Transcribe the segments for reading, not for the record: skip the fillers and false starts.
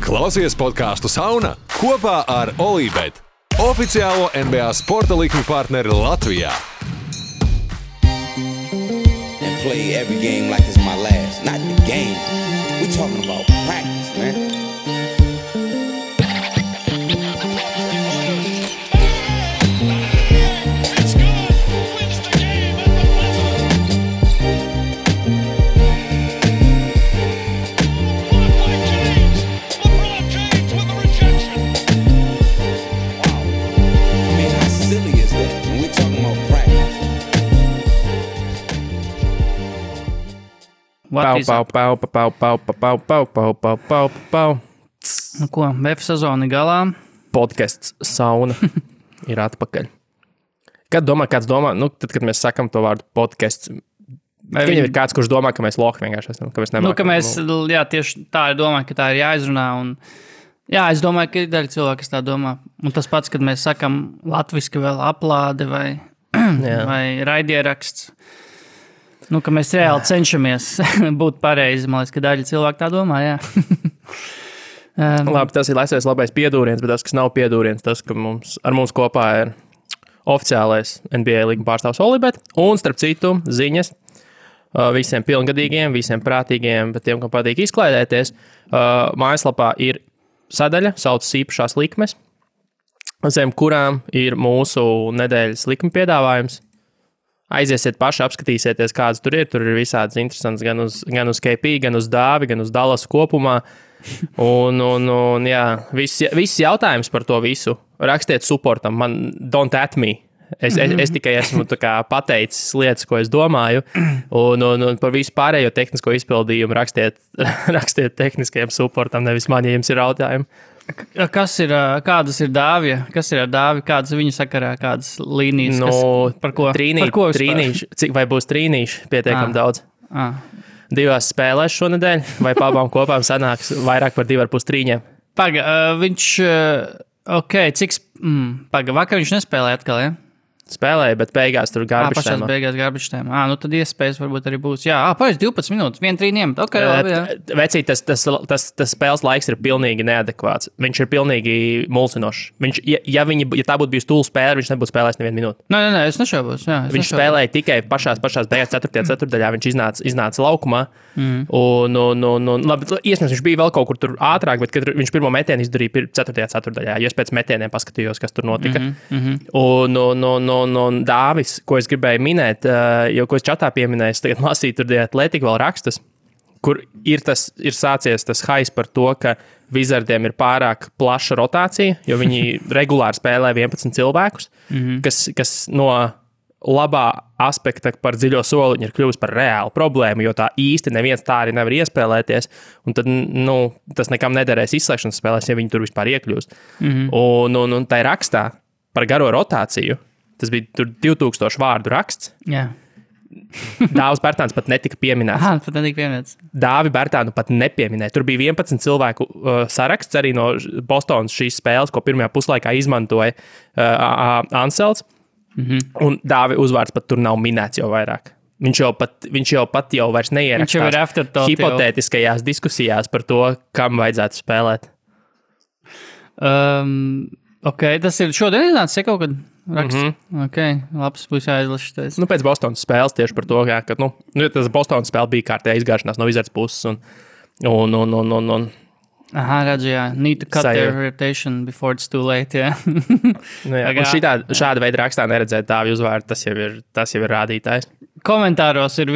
Klausies podcastu Sauna kopā ar Olībet, oficiālo NBA sporta likmi partneri Latvijā. And play every game like it's my last. Not the game. We talking about practice, man. Pau. Nu ko, BF sezona galā. Podcasts Sauna ir atpakaļ. Kāds domā, tad, kad mēs sakam to vārdu podcasts, viņam ir kāds, kurš domā, ka mēs lohi vienkārši esam, ka mēs nemākam. Jā, tieši tā ir domāju, ka tā ir jāizrunā. Un, jā, es domāju, ka ir daļa cilvēki, kas tā domā. Un tas pats, kad mēs sakam latviski vēl aplāde vai raidieraksts. Nu, ka mēs reāli cenšamies būt pareizi. Man liekas, ka daļa cilvēku tā domā, jā. Labi, tas ir labais piedūriens, bet tas, kas nav piedūriens, tas, ka ar mums kopā ir oficiālais NBA līguma pārstāvs Olībet. Un, starp citu, ziņas visiem pilngadīgiem, visiem prātīgiem, bet tiem, kam patīk izklaidēties, mājaslapā ir sadaļa, saucas īpašās likmes, zem kurām ir mūsu nedēļas likuma piedāvājums. Aiziesiet paši, apskatīsieties, kādas tur ir. Tur ir visādas interesantas gan uz KP, gan uz Dāvi, gan uz Dallasu kopumā. Un jā, viss jautājums par to visu. Rakstiet supportam, don't at me. Es tikai esmu pateicis lietas, ko es domāju. Un par visu pārējo tehnisko izpildījumu rakstiet tehniskajam supportam, nevis man, ja jums ir jautājumi. Kādas ir Dāvija? Kas ir ar Dāvi? Kādas viņa sakarā? Kādas līnijas? Par ko? Trīnīši. Vai būs trīnīši pietiekami daudz? 2 spēlēs šonedēļ, vai pabām kopām sanāks vairāk par 2,5 trīņiem? Viņš, vakar viņš nespēlēja atkal, ja? Spēlēja, bet beigās tur garbage time. Pašās beigās garbage time. Nu tad iespējas varbūt arī būs. Jā, pareiz 12 minūtes, 1 trīniem. Ok, labi, jā. Vecīt, tas spēles laiks ir pilnīgi neadekvāts. Viņš ir pilnīgi mulsinošs. Ja tā būtu bijusi tūlu spēle, viņš nebūtu spēlējis nevienu minūti. Nē, es nešaubos. Viņš spēlēja tikai pašās beigās 4. ceturdaļā. Viņš iznāca laukumā. Un labi, iespējams, viņš bija vēl kaut kur tur ātrāk, bet kad viņš pirmo metienu izdarīja 4. ceturdaļā, jo es pēc metieniem paskatījos, kas tur notika. Un Dāvis, ko es gribēju minēt, jo ko es čatā pieminēju, tagad lasīju tur Athletic vēl rakstus, kur ir sācies tas hais par to, ka Wizardiem ir pārāk plaša rotācija, jo viņi regulāri spēlē 11 cilvēkus, kas no labā aspekta par dziļo soliņu ir kļuvis par reālu problēmu, jo tā īsti neviens tā arī nevar iespēlēties, un tad, tas nekam nederēs izslēgšanas spēlēs, ja viņi tur vispār iekļūst. Un tai rakstā par garo rotāciju, tas bija tur 2000 vārdu raksts. Jā. Dāvis Bērtāns pat netika pieminēts. Pat netika pieminēts. Dāvi Bērtānu pat nepieminēja. Tur bija 11 cilvēku saraksts arī no Bostonas šīs spēles, ko pirmajā puslaikā izmantoja Ansels. Un Dāvi uzvārds pat tur nav minēts jau vairāk. Viņš jau pat vairs neierakstās hipotētiskajās diskusijās par to, kam vajadzētu spēlēt. Tas ir šodien iznācis, ja kaut kad raksts? Labs, būs jāizlašas. Pēc Bostonas spēles tieši par to, ka tas Bostonas spēle bija kārtējā izgāšanās no Wizards puses un redzu, jā. Need to cut their reputation before it's too late, jā. Un šāda veida rakstā neredzēt Dāvi uzvārdu, tas jau ir rādītājs. Komentāros ir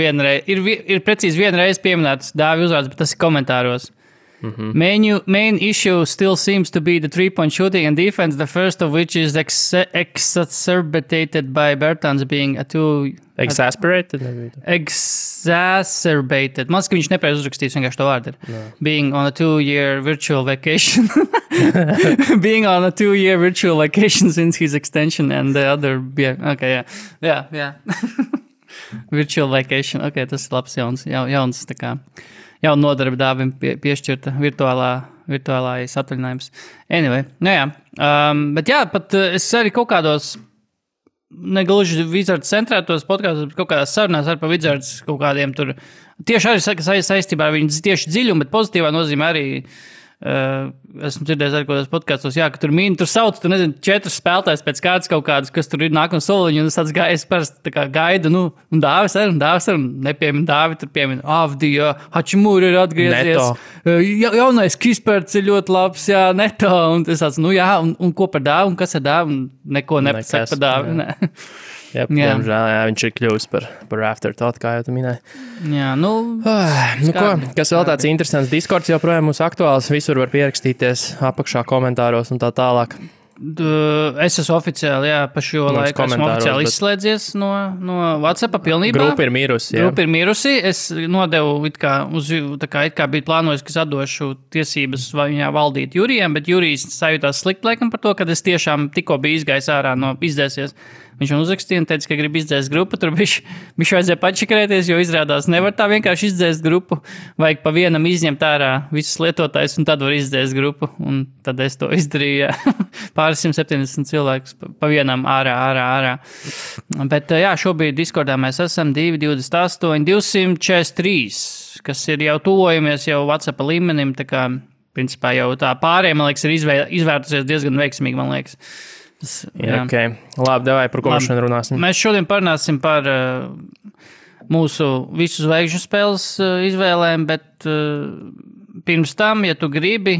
precīzi vienreiz pieminēts Dāvi uzvārds, bet tas ir komentāros. Main issue still seems to be the 3-point shooting and defense, the first of which is exacerbated by Bertans being Exasperated? Exacerbated. Man liekas, ka viņš nepareiz uzrakstīs vienkārši to vārdu. Being on a 2-year virtual vacation. Being on a 2-year virtual vacation since his extension and the other... Jā. Virtual vacation. Tas ir labs jauns tā kā. Jauna nodarbe Dāvim piešķirta virtuālais atvaļinājums. Anyway, bet jā, pat es arī kaut kādos negluži Wizards centrētos podkāstos, bet kaut kādās sarunās ar pa Wizards kaut kādiem tur tieši arī saistībā ar viņu tieši dziļumu, bet pozitīvā nozīmē arī esmu dzirdējis arī kādos podkastos, ka tur tur sauc, tu nezini, 4 spēlētājs pēc kārtas kaut kādas, kas tur ir nākamā soliņa, un es tāds gājis parasti tā kā gaidu, un Dāvis arī, nepiemin Dāvi, tur piemin Avdija, Hačimūri ir atgriezies. Jaunais Kisperts ir ļoti labs, Neto, un es tāds, un ko par Dāvi, un kas ir Dāvi, un neko nepasaka par Dāvi, ne. Diemžēl, viņš ir kļuvis par afterthought, kā jau tu minēji. Kas vēl tāds interesants? Discords joprojām mūs aktuāls, visur var pierakstīties apakšā komentāros un tā tālāk. Es esmu oficiāli, pa šo laiku esmu oficiāli izslēdzies no WhatsAppa pilnībā. Grupa ir mirusi, Es nodevu, it kā bija plānojis, ka es atdošu tiesības viņā valdīt Jurijam, bet Jurijs sajūtās slikti laikam par to, kad es tiešām tikko biju izgājis ārā no izdēsies. Viņš man uzrakstīja un teica, ka grib izdzēst grupu, tur viņš vajadzēja pačikrēties, jo izrādās nevar tā vienkārši izdzēst grupu, vajag pa vienam izņemt ārā visus lietotājus un tad var izdzēst grupu, un tad es to izdarīju, pāris 170 cilvēkus pa vienam ārā. Bet šobrīd Discordā mēs esam 228, 243, kas ir jau tuvojamies jau WhatsApp līmenim, tā kā, principā jau tā pārējiem, man liekas, ir izvērtusies diezgan veiksmīgi, man liekas. Okay. Labi, davai, par ko mēs šodien runāsim? Mēs šodien parunāsim par mūsu visu zvaigžņu spēles izvēlēm, bet pirms tam, ja tu gribi,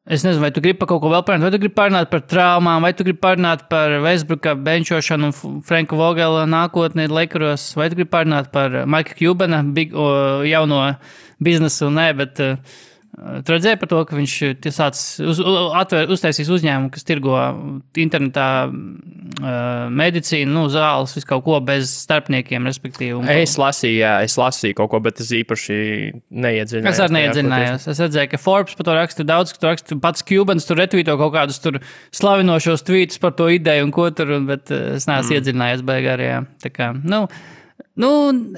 es nezinu, vai tu gribi par kaut ko vēl parunāt, vai tu gribi parunāt par traumām, vai tu gribi parunāt par Westbrooka benčošanu un Franka Vogela nākotni Lakeros, vai tu gribi parunāt par Mika Cubana jauno biznesu, bet tu redzēji par to, ka viņš uztaisīs uzņēmumu, kas tirgo internetā medicīnu, zāles, visu kaut ko bez starpniekiem, respektīvi. Es lasīju kaut ko, bet es īpaši neiedziļinājos. Es arī neiedziļinājos. Es redzēju, ka Forbes par to raksta daudz, ka to raksta pats Cubans, tur retvīto kaut kādus tur slavinošos tvītus par to ideju un ko tur, bet es neesmu iedziļinājies beigārajā. Tā kā,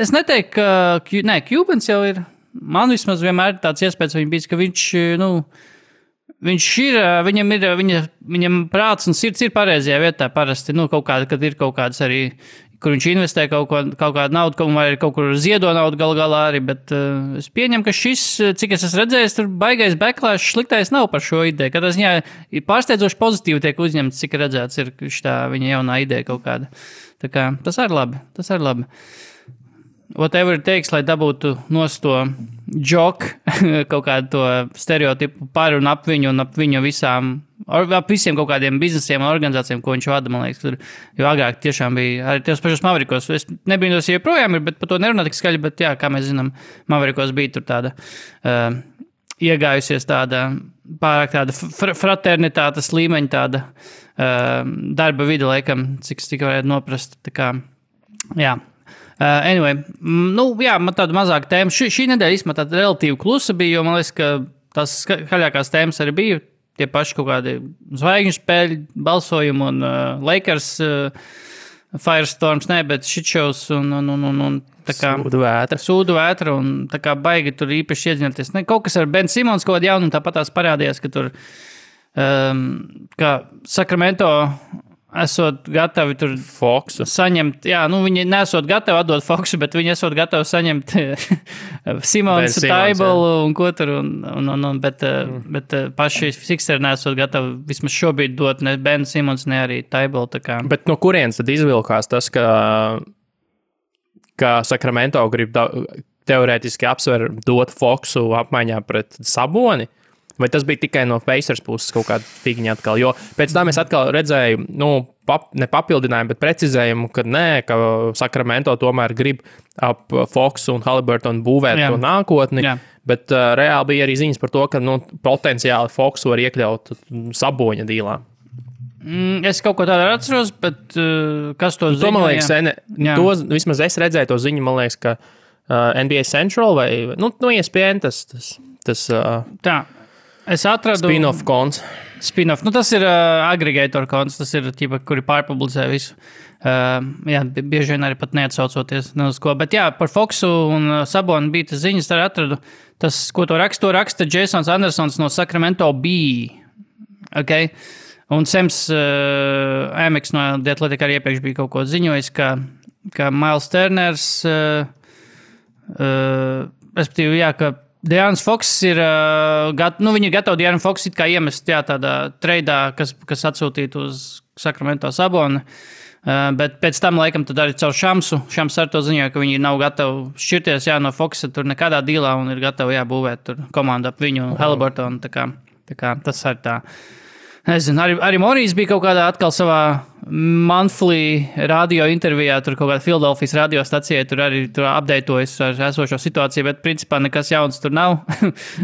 es neteiktu, ka, Cubans jau ir. Man vismaz vienmēr ir tāds iespējas, ka viņš ir, viņam prāts un sirds ir pareizajā vietā parasti, kaut kāda, kad ir kaut kādas arī, kur viņš investē kaut kādu naudu, vai kaut kur ziedo naudu galā arī, bet es pieņemu, ka šis, cik es esmu redzējis, tur baigais backlash sliktais nav par šo ideju, kad tas viņā pārsteidzoši pozitīvi tiek uzņemts, cik redzēts ir šitā viņa jaunā ideja kaut kāda. Tā kā tas ir labi. Whatever it takes, lai dabūtu nost to joku, kaut kādu to stereotipu par un ap viņu visiem kaut kādiem biznesiem un organizācijām, ko viņš vada, man liekas, tur, jo agrāk tiešām bija arī tos pašos Mavericos. Es nebīnos, ja joprojām ir, bet par to nerunā tik skaļi, bet kā mēs zinām, Mavericos bija tur tāda iegājusies pārāk tāda fraternitātes līmeņa tāda darba vide, laikam, cik es tikai varētu noprast, tā kā, anyway, man tāda mazāka tēma. Šī nedēļa īstenībā tāda relatīvi klusa bija, jo man liekas, ka tās skaļākās tēmas arī bija tie paši kaut kādi zvaigžņu spēļu balsojumi un Lakers Firestorms, bet shitshows un tā kā sūdu vētra un tā kā baigi tur īpaši iedziņoties. Kaut kas ar Ben Simons kaut kādu jaunu, tāpat tās parādījās, ka tur kā Sacramento esot gatavi tur Foxu saņemt, viņi nesot gatavi atdot Foxu, bet viņi esot gatavi saņemt Simons, Taibolu un ko tur, bet paši Sixeri nesot gatavi vismaz šobrīd dot ne Ben Simons, ne arī Taibolu. Bet no kurienes tad izvilkās tas, ka Sacramento grib teorētiski apsver dot Foxu apmaiņā pret Saboni? Vai tas bija tikai no Pacers puses kaut kāda figņa atkal? Jo pēc tam es atkal redzēju, ne papildinājumu, bet precizējumu, ka ka Sacramento tomēr grib ap Foxu un Haliburtonu būvēt to nākotni, bet reāli bija arī ziņas par to, ka potenciāli Foxu var iekļaut Saboņa dīlā. Es kaut ko tādu atceros, bet kas to ziņo? Man liekas, vismaz es redzēju to ziņu, man liekas, ka NBA Central vai, ESPN tas tā. Es atradu spin-off konts. Spin-off. Tas ir aggregator konts, tas ir tīpa, kuri pārpublicē visu. Bieži vien arī pat neatsaucoties uz ko. Bet par Foxu un Sabonu bija tas ziņas, arī atradu. Tas, ko to raksta Jasons Andersons no Sacramento Bee. Okay? Un Sems Amex no The Athletic arī iepriekš bija kaut ko ziņojis, ka Miles Turners respektīvi, ka De'Aaron Fox ir, viņi ir gatavi De'Aaron Fox it kā iemest tādā treidā, kas atsūtītu uz Sacramento Saboni. Bet pēc tam, laikam, tad arī caur Šamsu. Šams ar to ziņoja, ka viņi nav gatavi šķirties no Foxa tur nekādā dīlā un ir gatavi būvēt tur komandu ap viņu un Haliburtonu. Tā kā tas arī tā. Nezinu, arī Morijs bija kaut kādā atkal savā monthly radio intervijā, tur kaut kādā Philadelphijas radiostacijā, tur arī updatējas ar esošo situāciju, bet principā nekas jauns tur nav.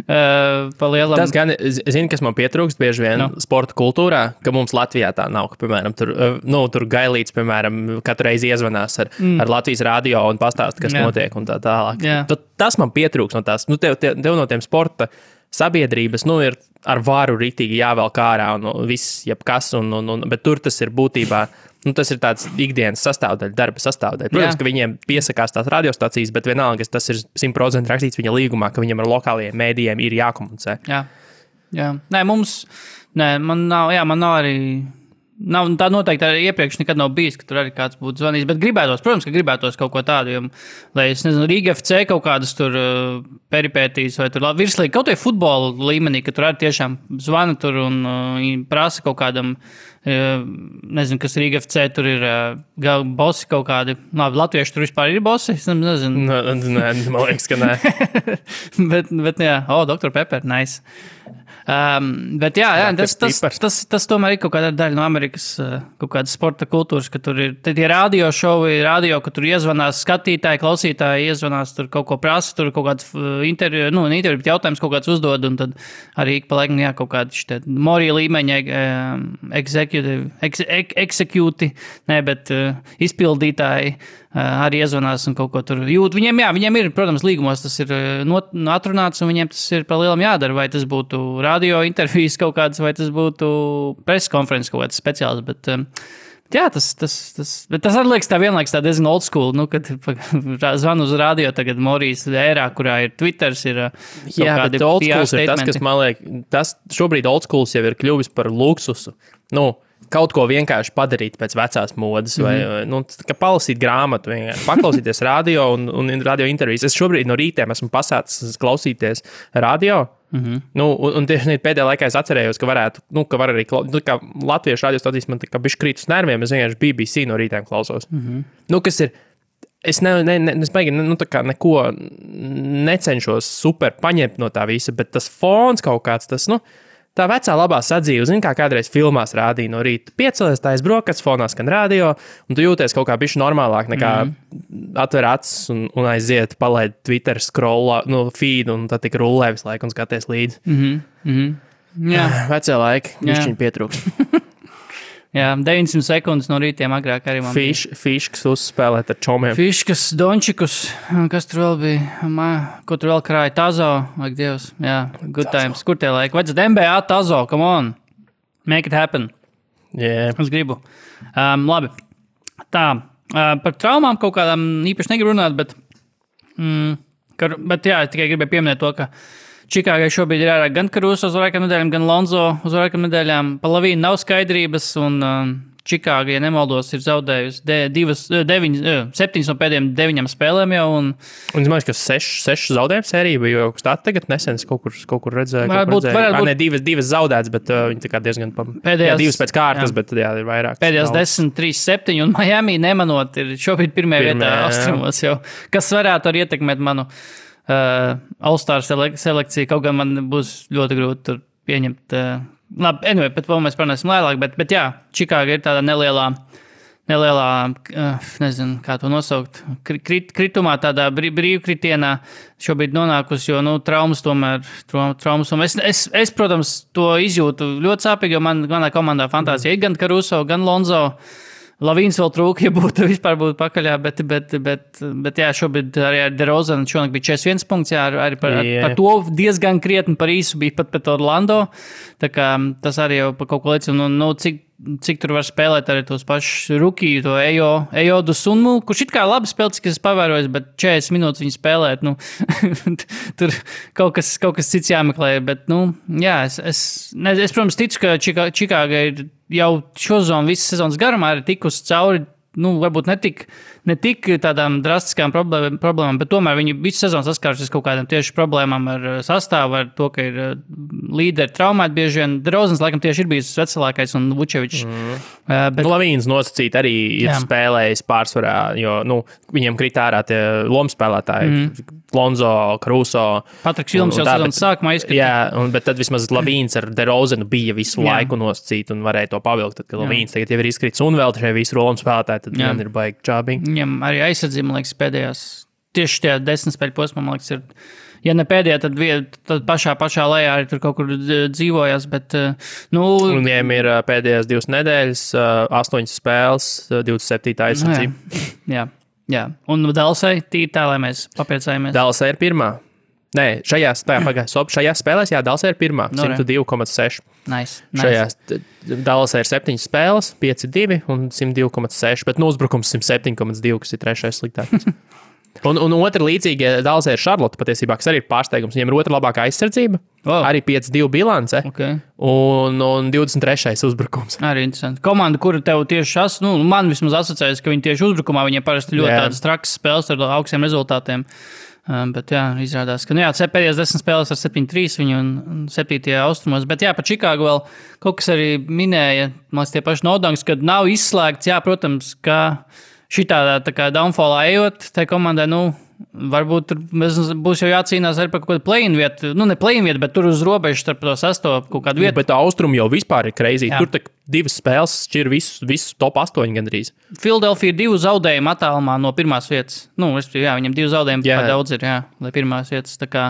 Pa lielam. Tas gan, zini, kas man pietrūkst bieži vien sporta kultūrā, ka mums Latvijā tā nav, ka, piemēram, tur Gailīts, piemēram, katru reizi iezvanās ar Latvijas radio un pastāst, kas notiek un tā tālāk. Tas man pietrūkst no tās, tev no tiem sporta sabiedrības, ir ar varu ritīgi jāvelk ārā un viss, jebkas, bet tur tas ir būtībā, tas ir tāds ikdienas sastāvdaļa, darba sastāvdaļa. Protams, ka viņiem piesakās tās radiostacijas, bet vienalga, tas ir 100% rakstīts viņa līgumā, ka viņam ar lokālajiem mēdījiem ir jākomunicē. Jā. Man nav arī... Tā noteikti arī iepriekš nekad nav bijis, ka tur arī kāds būtu zvanījis, bet protams, ka gribētos kaut ko tādu, lai es nezinu, Rīga FC kaut kādas tur peripētīs vai tur virslīgi, kaut vai futbola līmenī, ka tur arī tiešām zvana tur un prasa kaut kādam, nezinu, kas Rīga FC tur ir bosi kaut kādi, latvieši tur vispār ir bosi, es nezinu. Nē, man liekas, ka nē. bet jā, Dr. Pepper, nice. Bet tas tomēr ir kaut kāda daļa no Amerikas kaut kādas sporta kultūras, ka tur ir tie radio šovi, ka tur iezvanās skatītāji, klausītāji, iezvanās tur kaut ko prasa, tur kaut kāds interviju, bet jautājums kaut kāds uzdod, un tad arī pa laikam, kaut kādi Morija līmeņa izpildītāji arī iezvanās un kaut ko tur jūt. Viņiem ir, protams, līgumos tas ir atrunāts, un viņiem tas ir pa lielam jādara, vai tas būtu radio intervijas kaut kādas, vai tas būtu preskonferences kaut kāds speciāls, bet tas arī liekas tā vienlaiks tā diezgan old school, kad zvanu uz radio tagad Morijas ērā, kurā ir Twitters, ir bet old schools ir tas, kas man liekas, šobrīd old schools jau ir kļuvis par luksusu. Kaut ko vienkārši padarīt pēc vecās modes, vai palasīt grāmatu, paklausīties radio un radio intervijas. Es šobrīd no rītiem esmu pasācis klausīties radio. Un tieši pēdējā laikā es atcerējos, ka varētu, ka var arī, kā latviešu radiostacijas man tā kā bišķi krīt uz nerviem, es vienkārši BBC no rītiem klausos. Kas ir, es neko necenšos super paņemt no tā visa, bet tas fons kaut kāds, tas, tā vecā labā sadzīve, kā kādreiz filmās rādīja no rīta. Piecelies, tā aizbrokas, fonā skan radio, un tu jūties kaut kā bišķi normālāk nekā atver acis un aiziet, palaid Twitter scroll, feed, un tad tik rullē visu laiku un skaties līdzi. Jā. Vecie laiki, bišķiņi pietrūkst. Jā, 900 sekundes no rītiem agrāk arī man Fiškas uzspēlēt ar čomiem. Fiškas, Dončikus, kas tur vēl bija, ko tur vēl krāja, Tazo, like Dievs, jā, good times, kur tie laiki, vajadzētu NBA Tazo, come on, make it happen. Yeah. Es gribu. Labi, tā, par traumām kaut kādām īpaši negribu runāt, bet jā, tikai gribēju pieminēt to, ka Čikāgai šobrīd ir ārā gan Karuso uz vairākām nedēļām, gan Lonzo uz vairākām nedēļām. Pa Lavīnu nav skaidrības, un Čikāga, ja nemaldos, ir zaudējusi 7 no pēdējiem 9 spēlēm jau. Un es domāju, ka 6 zaudējumu sērija bija kaut kas tāds tagad nesen, kaut kur redzēju. Varbūt. Ne, 2 zaudētas, bet viņi tā kā diezgan pēdējās, 2 pēc kārtas, bet jā, ir vairāk. Pēdējās 10, 3, 7, un Miami nemanot ir šobrīd pirmajā vietā austrumos jau, kas varētu arī ietekmēt manu All-Star selekciju, kaut gan man būs ļoti grūti tur pieņemt. Labi, anyway, bet vēl mēs parunāsim lēlāk, bet jā, Čikāga ir tāda nelielā, nezinu, kā to nosaukt, kritumā, tādā brīvkritienā šobrīd nonākusi, jo, traumas tomēr. Es, protams, to izjūtu ļoti sāpīgi, jo manā komandā fantāzija ir gan Caruso, gan Lonzo. Lavīns vēl trūka, ja vispār būtu pakaļā, bet jā, šobrīd arī ar DeRozanu šonakt bija 41 punkts, jā, arī par to diezgan krietni par īsu bija pat pret Orlando, tā kā tas arī jau par kaut ko liecina, cik tur var spēlēt arī tos pašus rukiju, to Ejodu Sunmu, kurš it kā labi spēlē, cik es pavērojos, bet 40 minūtes viņi spēlēt, tur kaut kas cits jāmeklē, bet, jā, es protams, ticu, ka Čikāga ir jau šo zonu visas sezonas garumā ir tikusi cauri varbūt ne tik tādām drastiskām problēmām, bet tomēr viņi visu sezonu saskārušies kaut kādām tieši problēmām ar sastāvu, ar to, ka ir līderi traumēti bieži vien. DeRozans, laikam, tieši ir bijis veselākais un Vučevičs. Bet Lavīns nosacīt arī ir spēlējis pārsvarā, jo, viņiem krīt ārā tie lomspēlētāji, Lonzo, Caruso. Patriks Vilms jau sezonas sākumā izskatīt. Jā, bet tad vismaz Lavīns ar DeRozanu bija visu laiku nosacīt un varēja to pavilkt, tad, kad Lavīns tagad jau ir izkrits un vēl šie visi lomspēlētāji, tad man ir baigi čābīgi. Viņam arī aizsardzība, man liekas, pēdējās, tieši tajā 10 spēļu posmā, man liekas, ir, ja ne pēdējā, tad pašā lejā arī tur kaut kur dzīvojas, bet, Un viņiem ir pēdējās 2 nedēļas, 8 spēles, 27. aizsardzība. Jā. Un Dallasai tīri tā, lai mēs papriecājamies. Dallasai ir pirmā. Nē, šajās spēlēs, Dallasai ir pirmā, 102,6. Nice. Šajās Dallasai ir 7 spēles, 5-2 un 102,6, bet uzbrukums 107,2, kas ir 3. sliktākais. un otra līdzīga Dallasai ir Charlotte patiesībā, kas arī ir pārsteigums. Viņiem ir otra labākā aizsardzība, arī 5-2 bilance un 23. uzbrukums. Arī interesanti. Komanda, kura tev tieši man vismaz asociējas, ka viņi tieši uzbrukumā, viņiem parasti ļoti tādas trakas spēles ar augstiem rezultātiem. Bet izrādās, ka pēdējās 10 spēles ar 7-3 viņu un 7. austrumos, bet par Čikāgu vēl kaut kas arī minēja, man liekas, tie paši Nodangs, kad nav izslēgts, protams, ka šitā tā kā downfallā ejot, tai komandai, varbūt tur būs jau jācīnās arī par kaut kādu play-in vietu, ne play-in vietu, bet tur uz robežu starp to 6. kaut kādu vietu. Bet austrumi jau vispār ir crazy, tur tak 2 spēles šķir visu top 8 gandrīz. Philadelphia ir 2 zaudējumi attālumā no pirmās vietas. Viņam 2 zaudējumi daudz ir, lai pirmās vietas. Tā kā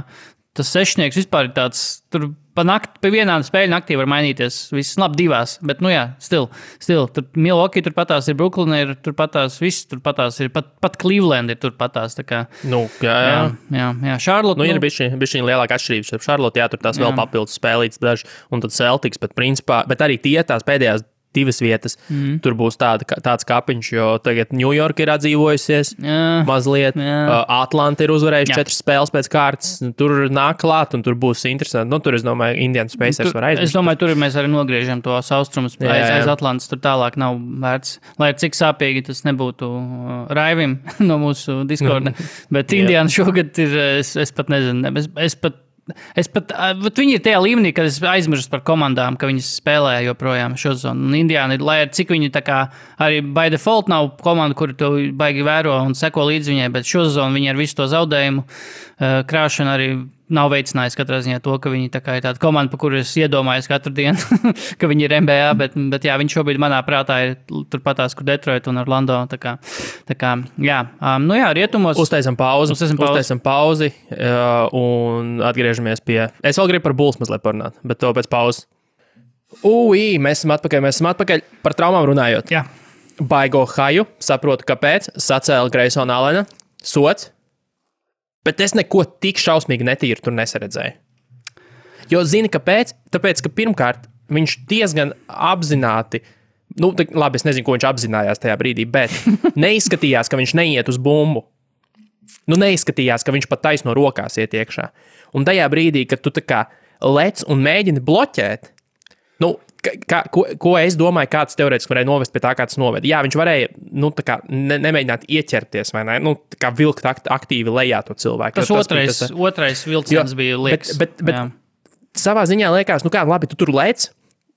tas sešnieks vispār ir tāds, tur pa vienā spēļu naktī var mainīties. Viss labi 2, bet, still. Tur Milwaukee turpatās ir, Brooklyn ir turpatās, viss turpatās ir, pat Cleveland ir turpatās. Tā kā, jā. Charlotte. Ir bišķiņ lielāka atšķirības. Charlotte, tur tās vēl papildus spēlītas daži, un tad Celtics, bet principā, bet arī tās pēdējās 2 vietas. Tur būs tāds kapiņš, jo tagad New York ir atdzīvojusies mazliet. Atlanta ir uzvarējuši 4 spēles pēc kārtas. Tur nāk klāt, un tur būs interesanti. Tur, es domāju, Indiana Pacers var aizvest. Es domāju, tur mēs arī nogriežam tos austrumus aiz Atlantas. Tur tālāk nav vērts. Lai cik sāpīgi tas nebūtu Raivim no mūsu Discorda. Bet Indiana šogad ir, es pat nezinu, viņi ir tajā līmenī, kad es aizmirstu par komandām, ka viņas spēlē joprojām šo zonu. Un Indiāna ir, lai ar cik viņi tā kā arī by default nav komanda, kuru to baigi vēro un seko līdz viņai, bet šo zonu viņi ar visu to zaudējumu krāšanu arī nav veicinājis katrā ziņā to, ka viņi tā kā ir tāda komanda, pa kuru es iedomājos katru dienu, ka viņi ir NBA, bet viņi šobrīd manā prātā ir turpatās, kur Detroit un Orlando. Tā kā rietumos. Uztaisam pauzi un atgriežamies pie. Es vēl gribu par Bulls mazliet parunāt, bet to pēc pauzes. Mēs esam atpakaļ par traumām runājot. Jā. Baigo haju, saprotu, kāpēc, sacēla Greysona Allena, sots. Bet es neko tik šausmīgi netīru tur nesaredzēju. Jo zini, kāpēc? Tāpēc, ka pirmkārt viņš diezgan apzināti, labi, es nezinu, ko viņš apzinājās tajā brīdī, bet neizskatījās, ka viņš neiet uz bumbu. Neizskatījās, ka viņš pat taisno rokās iet iekšā. Un tajā brīdī, kad tu tā kā lec un mēģini bloķēt, ko es domāju, kāds teorētiski varēja novest pie tā, kā tas noveda. Jā, viņš varēja nemēģināt ieķerties, vai ne? Kā vilkt aktīvi lejā to cilvēku. Tas otrais vilciens bija liekas. Bet savā ziņā liekas, labi, tu tur lec,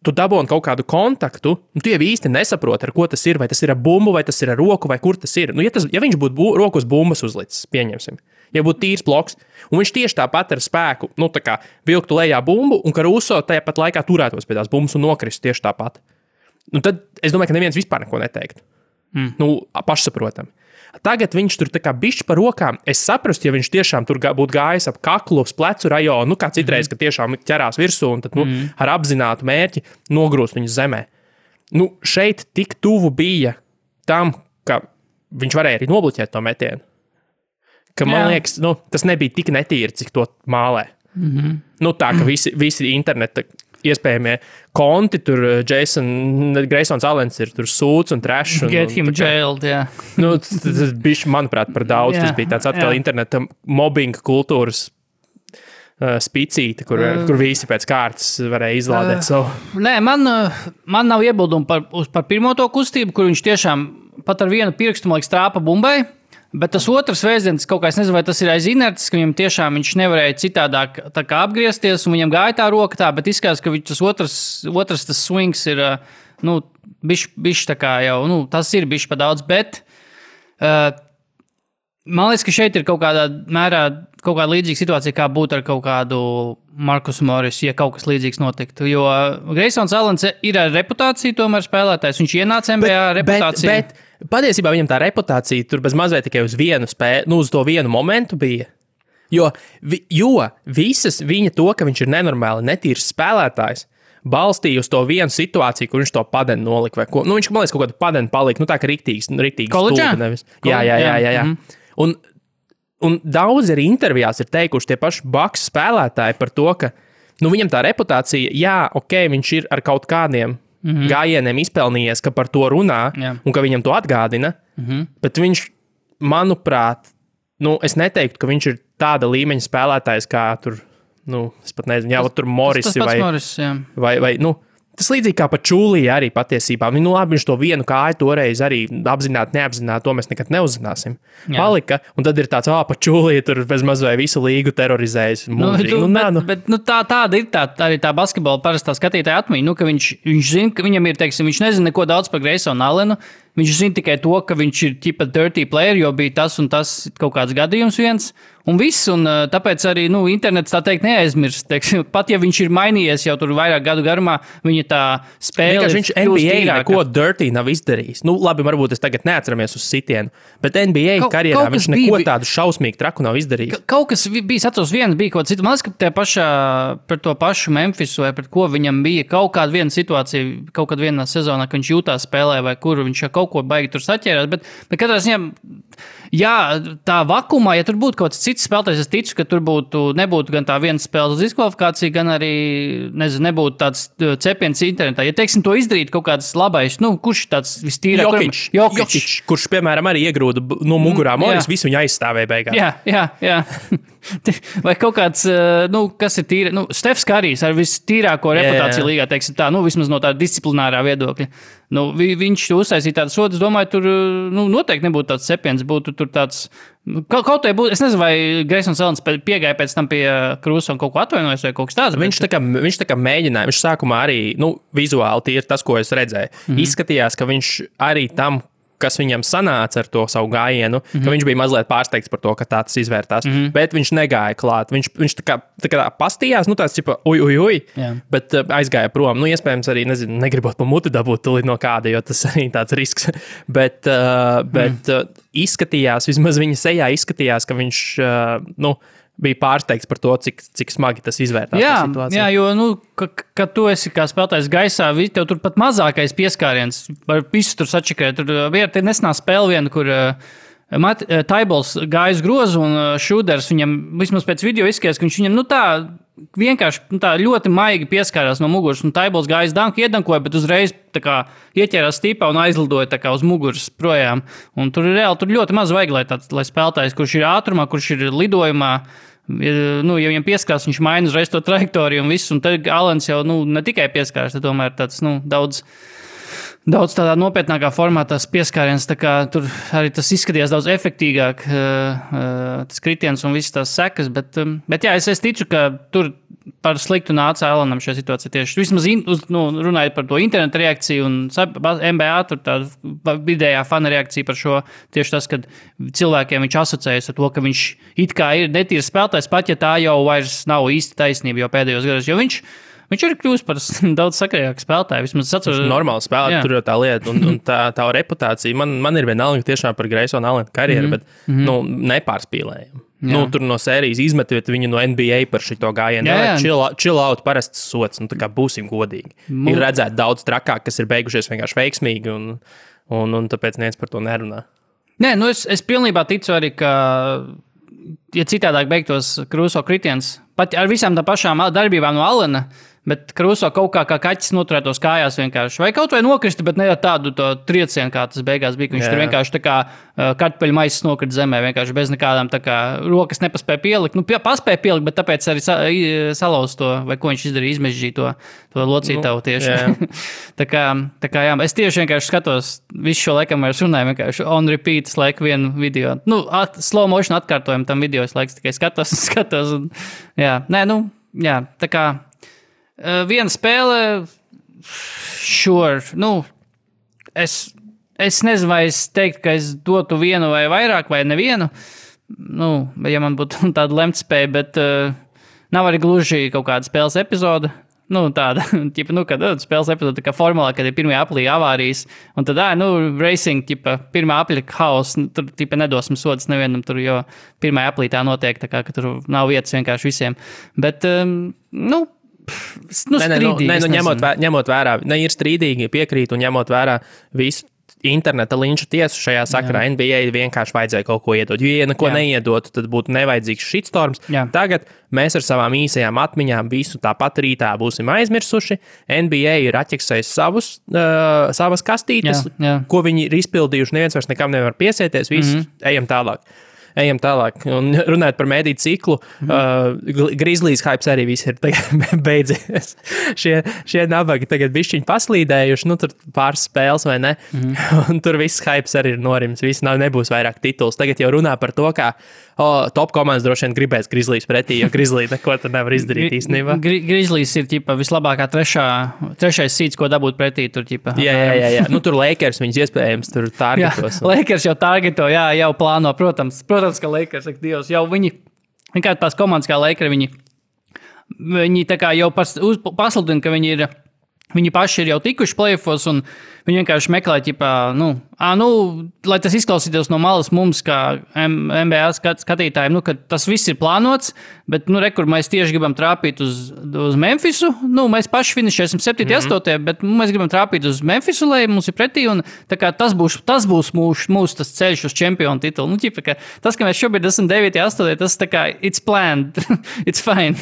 tu dabūni kaut kādu kontaktu, un tu jau īsti nesaproti, ar ko tas ir, vai tas ir ar bumbu, vai tas ir ar roku, vai kur tas ir. Ja viņš būtu roku uz bumbas uzlicis, pieņemsim. Ja būtu tīrs bloks, un viņš tieši tāpat ar spēku, vilktu lejā bumbu, un Caruso tajā pat laikā turētos pie tās bumbas un nokristu tieši tāpat. Tad es domāju, ka neviens vispār neko neteiktu. Pašsaprotami. Tagad viņš tur tā kā bišķi par rokām. Es saprastu, ja viņš tiešām tur būtu gājis ap kaklu, uz plecu rajonu, kā citreiz, ka tiešām ķerās virsū un tad, ar apzinātu mērķi nogrūst viņu zemē. Šeit tik tuvu bija tam, ka viņš varēja arī nobloķēt to metienu. Ka, man liekas, tas nebija tik netīri, cik to mālē. Tā, ka visi interneta iespējamie konti, tur Greysons Allens ir tur sūds un trash. Get him jailed, jā. Tas bija, manuprāt, par daudz. Tas bija tāds atkal interneta mobbinga kultūras spicīte, kur visi pēc kārtas varēja izlādēt savu. Nē, man nav iebildumu par pirmo to kustību, kur viņš tiešām pat ar vienu pirkstu, man liekas, trāpa bumbai. Bet tas otrs vēstdienis, kaut kā es nezinu, vai tas ir aiz inerces, ka viņam tiešām viņš nevarēja citādāk tā kā apgriezties, un viņam gāja tā roka tā, bet izskatās, ka tas otrs tas swings ir, bišķi tā kā jau, tas ir bišķi pa daudz, bet man liekas, ka šeit ir kaut kādā mērā kaut kāda līdzīga situācija, kā būtu ar kaut kādu Markus Morris, ja kaut kas līdzīgs notiktu. Jo Greysons Allens ir ar reputāciju tomēr spēlētājs, viņš ienāca NBA reputāciju. Bet patiesībā viņam tā reputācija tur bez mazliet tikai uz vienu spēli, uz to vienu momentu bija. Jo visas viņa to, ka viņš ir nenormāli netīrs spēlētājs, balstīja uz to vienu situāciju, kur viņš to padenu nolika vai ko. Viņš, man liekas, kaut kādu padenu palika, tā kā riktīgi Koledžā? stūpa nevis. Jā. Un daudz arī intervijās ir teikuši tie paši Bucks spēlētāji par to, ka viņam tā reputācija, viņš ir ar kaut kādiem gājieniem izpelnījies, ka par to runā un ka viņam to atgādina, bet viņš, manuprāt, es neteiktu, ka viņš ir tāda līmeņa spēlētājs kā tur, es pat nezinu, tur Morisi vai tas līdzīgi kā pa Čūlī arī patiesībā. Labi, viņš to vienu kāju toreiz arī apzināti, neapzināti, to mēs nekad neuzzināsim. Palika, un tad ir tāds, pa Čūlī tur bez maz vai visu līgu terorizējis. Tāda ir arī tā basketbola parastā skatītāja atmiņa, ka viņš zina, ka viņam ir, teiksim, viņš nezina neko daudz par Greysonu Allenu, viņš zina tikai to, ka viņš ir tipa dirty player, jo bija tas un tas kaut kāds gadījums viens. Un viss, un tāpēc arī internets tā teikt neaizmirst. Pat ja viņš ir mainījies jau tur vairāk gadu garumā, viņa tā spēle viņš NBA neko dirty nav izdarījis. Labi, varbūt es tagad neatceramies uz sitienu, bet NBA karjerā viņš neko tādu šausmīgu traku nav izdarījis. Kaut kas bija, atceros, viens bija kaut cits. Man liekas, ka par to pašu Memphisu vai pret ko viņam bija kaut kāda viena situācija, kaut kādā vienā sezonā, ka viņš jūtās spēlē vai kur viņš kaut ko baigi tur saķērās, bet katrā ziņā, tā vakumā, ja tur būtu kaut kāds cits spēlētājs, es ticu, ka tur nebūtu gan tā viena spēles diskvalifikācija, gan arī, nebūtu tāds cepiens internetā. Ja, teiksim, to izdarīt kaut kāds labais, kurš tāds vistīrāk? Jokić, kurš, piemēram, arī iegrūda no mugurā Morris, visu viņu aizstāvēja beigās. Jā. Vai kaut kāds, kas ir tīra, Stefs Karijs ar vistīrāko reputāciju līgā, teiksim tā, vismaz no tāda disciplinārā viedokļa. Viņš uztaisīja tādas sodas, domāju, tur noteikti nebūtu tāds cepiens, būtu tur tāds, kaut vai būtu, es nezinu, vai Greysons Allens piegāja pēc tam pie Krūsa un kaut ko atvainojas vai kaut kas tāds. Viņš tā kā mēģināja, viņš sākumā arī, vizuāli tie ir tas, ko es redzēju. Izskatījās, ka viņš arī tam, kas viņam sanāca ar to savu gājienu, ka viņš bija mazliet pārsteigts par to, ka tā tas izvērtās. Bet viņš negāja klāt. Viņš tā kā pastījās, tāds tipa, bet aizgāja prom. Iespējams arī, negribot pa muti dabūt tulīt no kāda, jo tas arī tāds risks. Bet izskatījās, vismaz viņa sejā izskatījās, ka viņš, bija pārsteigts par to, cik smagi tas izvērtās. Jā, jo, kad tu esi kā spēlētājs gaisā, tev tur pat mazākais pieskāriens, var visu tur sačakrēt. Tur nesenā spēle viena, kur Taibols gāja uz grozu un Šūders viņam, vismaz pēc video izskatījās, ka viņš viņam, vienkārši tā ļoti maigi pieskārās no muguras, un Taibols gāja uz danku, iedankoja, bet uzreiz tā kā ieķērās stīpā un aizlidoja tā kā uz muguras projām. Un tur ļoti maz vajag, lai spēlētājs, kurš ir ātrumā, kurš ir lidojumā, ja viņam pieskārās, viņš maina uzreiz to trajektoriju un visu, un tad Allens jau, ne tikai pieskārās, tad tomēr tāds, daudz tādā nopietnākā formā tas pieskāriens, tā kā tur arī tas izskatījās daudz efektīgāk, tas kritiens un visas tās sekas, bet jā, es ticu, ka tur par sliktu nāca Allenam šajā situācijā tieši. Vismaz runājot par to internetu reakciju un NBA, tur tāda vidējā fana reakcija par šo, tieši tas, kad cilvēkiem viņš asociējas ar to, ka viņš it kā ir netīrs spēlētājs, pat ja tā jau vairs nav īsti taisnība jau pēdējos gados, jo viņš ir kļūst par daudz sakarīgāku spēlētāju. Vismaz atceros, normāli spēlēt, tur jau tā lieta. Un tā reputācija, man ir vienalga tiešām par Greysonu Allenu karjeru, bet nepārspīlējam. Tur no sērijas izmetot viņu no NBA par šito gājienu. Chill out, parasts sots, tā kā būsim godīgi. Ir redzēt daudz trakāk, kas ir beigušies vienkārši veiksmīgi, un tāpēc neviens par to nerunā. Nē, es pilnībā ticu arī, ka ja citādāk beigtos Krūso kritiens, pat ar visām tā pašām darbībām no Allena, Bet Kruso kaut kā kaķis noturētos kājās vienkārši. Vai kaut vai nokrista, bet ne tādu to triecienu, kā tas beigās bija. Viņš tur vienkārši tā kā kartupeļu maisas nokrita zemē, vienkārši bez nekādām tā kā rokas nepaspēja pielikt. Nu, paspēja pielikt, bet tāpēc arī salauz to, vai ko viņš izdarīja, izmežģīja to locītavu tieši. tā kā jā, es tieši vienkārši skatos visu šo laikam vairs runāju, vienkārši on repeat laiku vienu video. Nu, slow motion atkārtojumu tam video es laiks tikai skatos. Un, jā, tā kā viena spēle, sure, es nezinu, vai es teiktu, ka es dotu vienu vai vairāk, vai nevienu, ja man būtu tāda lemtspēja, bet nav arī gluži kaut kāda spēles epizode. Tāda, kad spēles epizode, kā formulā, kad ir pirmajā aplī avārijas, un tad, racing, pirmā apļa haus, tur, nedosam sodas nevienam, tur, jo pirmajā aplī tā notiek, tā kā, ka tur nav vietas vienkārši visiem. Bet, ņemot vērā, ir strīdīgi piekrīt un ņemot vērā visu interneta linču tiesu šajā sakarā, NBA vienkārši vajadzēja kaut ko iedot. Jo, ja neko neiedotu, tad būtu nevajadzīgs shitstorms. Tagad mēs ar savām īsajām atmiņām visu tāpat rītā būsim aizmirsuši. NBA ir atķeksējis savas kastītes, ko viņi ir izpildījuši. Neviens vairs nekam nevar piesieties, visi ejam tālāk. Un runājot par mediju ciklu, Grizzlies hypes arī viss ir beidzies. Šie nabagi tagad bišķiņi paslīdējuši, tur pāris spēles vai ne, un tur viss hypes arī ir norims, nebūs vairāk tituls. Tagad jau runā par to, kā top komandas droši vien gribēs Grizzlies pretī, jo Grizzlies neko tur nevar izdarīt īstenībā. Grizzlies ir vislabākā trešais seeds, ko dabūt pretī. Tur, jā. Tur Lakers viņus iespējams tur targetos. Lakers jau targeto, jau plāno, protams, ka Lakers, Dievs, jau viņi, vienkārši tās komandas kā Lakers, viņi tā kā jau pasludina, ka viņi paši ir jau tikuši playoffos, un viņi vienkārši meklē, lai tas izklausītos no malas mums, kā NBA skatītājiem, ka tas viss ir plānots, bet, kur mēs tieši gribam trāpīt uz Memphisu, mēs paši finišēsim 7.8, bet mēs gribam trāpīt uz Memphisu, lai mums ir pretī, un tā kā tas būs mūsu tas ceļš uz čempionu titulu. Tas, ka mēs šobrīd esam 9.8, tas tā kā it's planned, it's fine.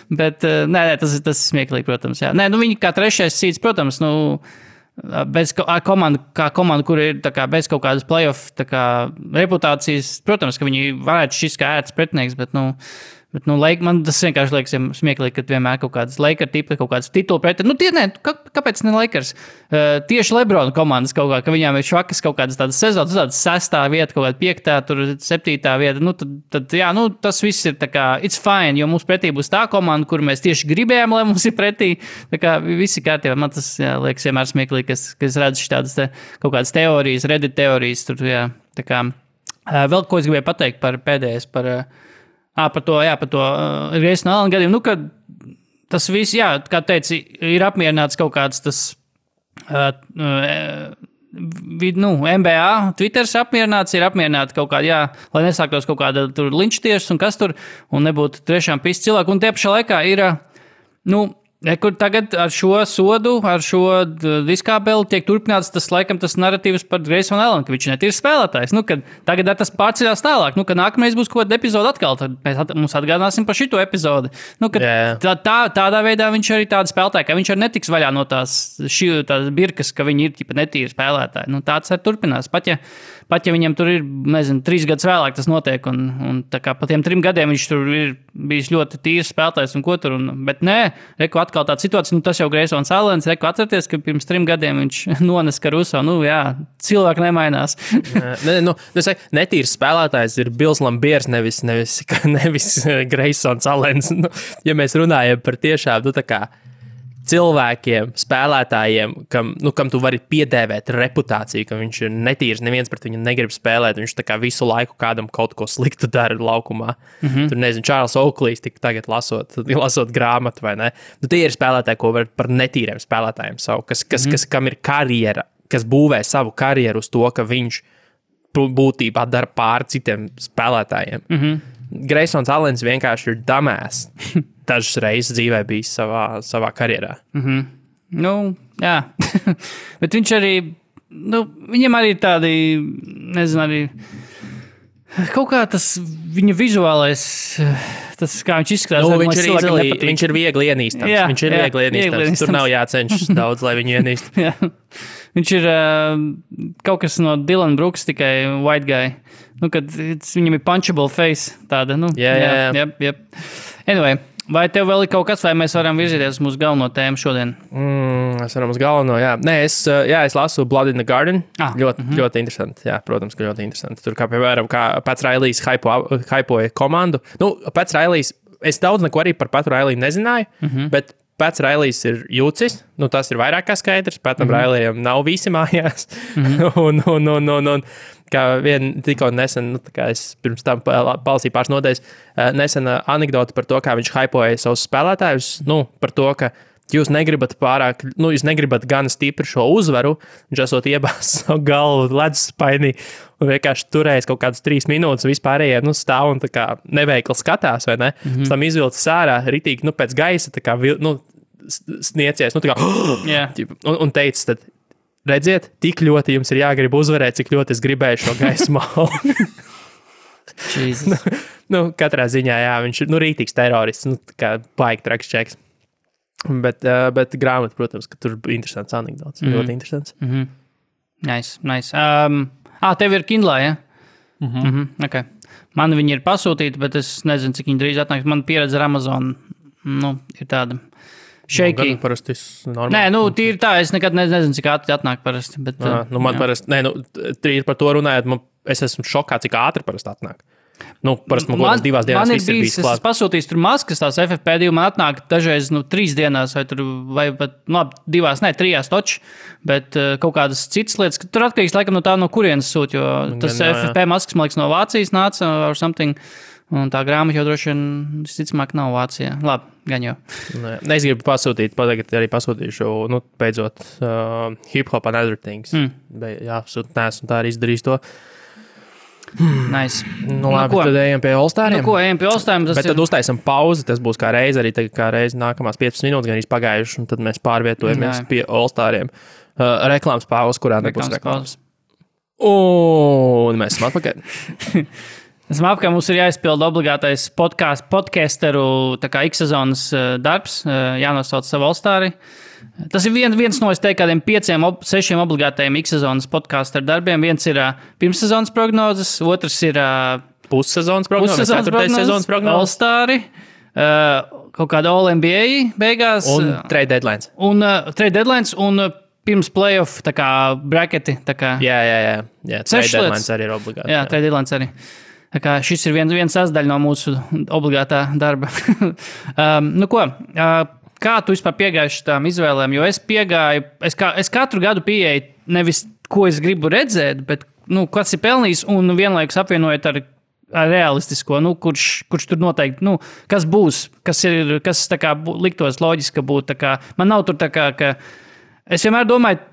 Bet, tas ir smieklīgi, protams, jā. Viņi kā trešais seeds, protams, bez komanda, kur ir bez kaut kādas playoff reputācijas, protams, ka viņi varētu šis kā ērts pretinieks, bet, man tas vienkārši liekas smieklīgi, ka vienmēr kaut kādas Lakers tipi, kaut kādas titulu pretinieki. Kāpēc ne Lakers? Tieši LeBron komandas kaut kā, ka viņām ir švakas kaut kādas tādas sezonas, tādas 6. vieta, kaut kāda 5., tur 7. vieta, tad tas viss ir tā kā, it's fine, jo mums pretī būs tā komanda, kur mēs tieši gribējām, lai mums ir pretī, tā kā visi kārtībā. Man tas, liekas vienmēr smieklīgi, ka es redzu tādas kaut kādas teorijas, Reddit teorijas, tur, tā kā, vēl ko es gribēju pateikt par pēdējais, par to Grayson Allen gadījumu, kad tas viss, kā teici, ir apmierināts kaut kāds tas NBA, Twitters apmierināts, ir apmierināti kaut kādā, lai nesāktos kaut kāda tur linčtiesas un kas tur, un nebūtu tiešām pis cilvēku, un tie pašā laikā ir, kur tagad ar šo sodu, ar šo diskābeli tiek turpināts tas narratīvs par Grayson Allen, ka viņš netīr spēlētājs. Kad tagad tas pārceļās tālāk, kad nākamreiz būs kaut kāda epizode atkal, tad mēs mums atgādināsim par šito epizodi. Tādā veidā viņš arī tāda spēlētāja, ka viņš arī netiks vaļā no tās birkas, ka viņi ir netīri spēlētāji. Tāds arī turpinās. Pat ja viņam tur ir, 3 gadus vēlāk tas notiek, un tā kā pa tiem 3 gadiem viņš tur ir bijis ļoti tīrs spēlētājs un ko tur, bet nē, atkal tāda situācija, tas jau Graysons Allens, atcerieties, ka pirms 3 gadiem viņš nones Caruso, cilvēki nemainās. Netīrs spēlētājs ir Bills Lambiers, nevis Graysons Allens. Ja mēs runājam par tiešām, tā kā cilvēkiem, spēlētājiem, kam tu vari piedēvēt reputāciju, ka viņš ir netīrs, neviens pret viņu negrib spēlēt, viņš tā kā visu laiku kādam kaut ko sliktu dara laukumā. Tur, nezinu, Čārls Oaklīs tik tagad lasot grāmatu, vai ne? Tie ir spēlētāji, ko var par netīriem spēlētājiem savu, kam ir karjera, kas būvē savu karjeru uz to, ka viņš būtībā dara pār citiem spēlētājiem. Graysons Allens vienkārši ir damēs. Dažas reizes dzīvē bijis savā karjerā. Jā. Bet viņš arī, viņam arī tādi, nezinu, arī Kaut kā tas viņa vizuālais, tas kā viņš izskatās. Viņš ir viegli ienīstams. Jā, viņš ir viegli ienīstams. Tur nav jācenšas daudz, lai viņu ienīst. Jā. Viņš ir kaut kas no Dylan Brooks, tikai white guy. Kad viņam ir punchable face tāda. Jā. Anyway, vai tev vēl ir kaut kas, vai mēs varam virzīties uz mūsu galveno tēmu šodien? Es varam uz galveno, jā. Nē, es lasu Blood in the Garden. Ļoti interesanti. Jā, protams, ka ļoti interesanti. Tur, kā piemēram, Pats Railijs hypoja komandu. Pats Railijs, es daudz neko arī par Patu Railiju nezināju, bet Pats Railijs ir jūcis, tas ir vairāk kā skaidrs. Patam Railijam nav visi mājās. un kā tikko nesen, kā es pirms tam palasīju pāris nodaļas, nesen anekdota par to, kā viņš hypoja savus spēlētājus, par to, ka jūs negribat pārāk, jūs negribat gan stipri šo uzvaru, viņš esot iebāzis savu galvu leduspainī un vienkārši turējis kaut kādas 3 minūtes, vispārējie stāv un tā kā neveikli skatās, vai ne? Pēc tam izvilcis ārā, ritīgi, pēc gaisa, tā kā, sniecies, tā kā, un teicis, tad, redziet, tik ļoti jums ir jāgrib uzvarēt, cik ļoti es gribēju šo gaismu malu. Katrā ziņā, jā, viņš ir, ritīgs terorists, kā baigi traks čeks. Bet grāmata, protams, ka tur ir interesants anekdots. Ļoti interesants. Nice. Tev ir Kindle, ja? Okay. Man viņi ir pasūtīti, bet es nezinu, cik viņi drīz atnāks. Man pieredze ar Amazon, ir tāda shaky. Parasti normāli. Nē, tīri tā, es nekad nezinu, cik ātri atnāk parasti. Bet, man parasti, tīri par to runājot, es esmu šokā, cik ātri parasti atnāk. Parasti man kaut kādas 2 dienās viss ir bijis klāt. Es pasūtīju tur maskas, tās FFP2 man atnāk dažreiz 3 dienās, vai pat 3 toči, bet kaut kādas citas lietas, ka tur atkarīgs laikam no kurienes sūt, jo tas FFP maskas, man liekas, no Vācijas nāca or something, un tā grāmata jau droši vien, visticamāk, nav Vācijā. Labi, gan jau. Es gribu pasūtīt, tagad arī pasūtīšu, beidzot, Hip Hop and Other Things. Jā, neesmu tā arī izdarījis to. Nice. Labi, tad ejam pie All-Stariem. Ejam pie All-Stariem. Bet tad uztaisam pauzi, tas būs kā reiz, arī kā reiz nākamās 15 minūtes, gan izpagājuši, un tad mēs pārvietojamies pie All-Stariem. Reklāmas pauzi, kurā nebūs reklāmas. Un mēs esam atpakaļ. Mums ir jāizpild obligātais podcasteru X-sezonas darbs, jānosauc savu All-Stari. Tas ir viens no, es teiktu, kādiem 5-6 obligātajiem X-sezonas podcasteru darbiem. Viens ir pirmssezonas prognozes, otrs ir pussezonas prognozes, 4. sezonas prognozes, All-Stari, kaut kāda All-NBA beigās. Un trade deadlines. Trade deadlines un pirms playoff, tā kā bracketi. Tā kā jā. Trade deadlines arī ir obligāti. Jā, trade deadlines arī. Tā kā šis ir viens sasdaļa no mūsu obligātā darba. Kā tu vispār piegāji šitām izvēlēm? Jo es piegāju, es katru gadu pieeju nevis, ko es gribu redzēt, bet, kas ir pelnījis un vienlaikus apvienojot ar realistisko, kurš tur noteikti, kas būs, kas tā kā liktos loģiski būt, tā kā, man nav tur tā kā, ka es vienmēr domāju,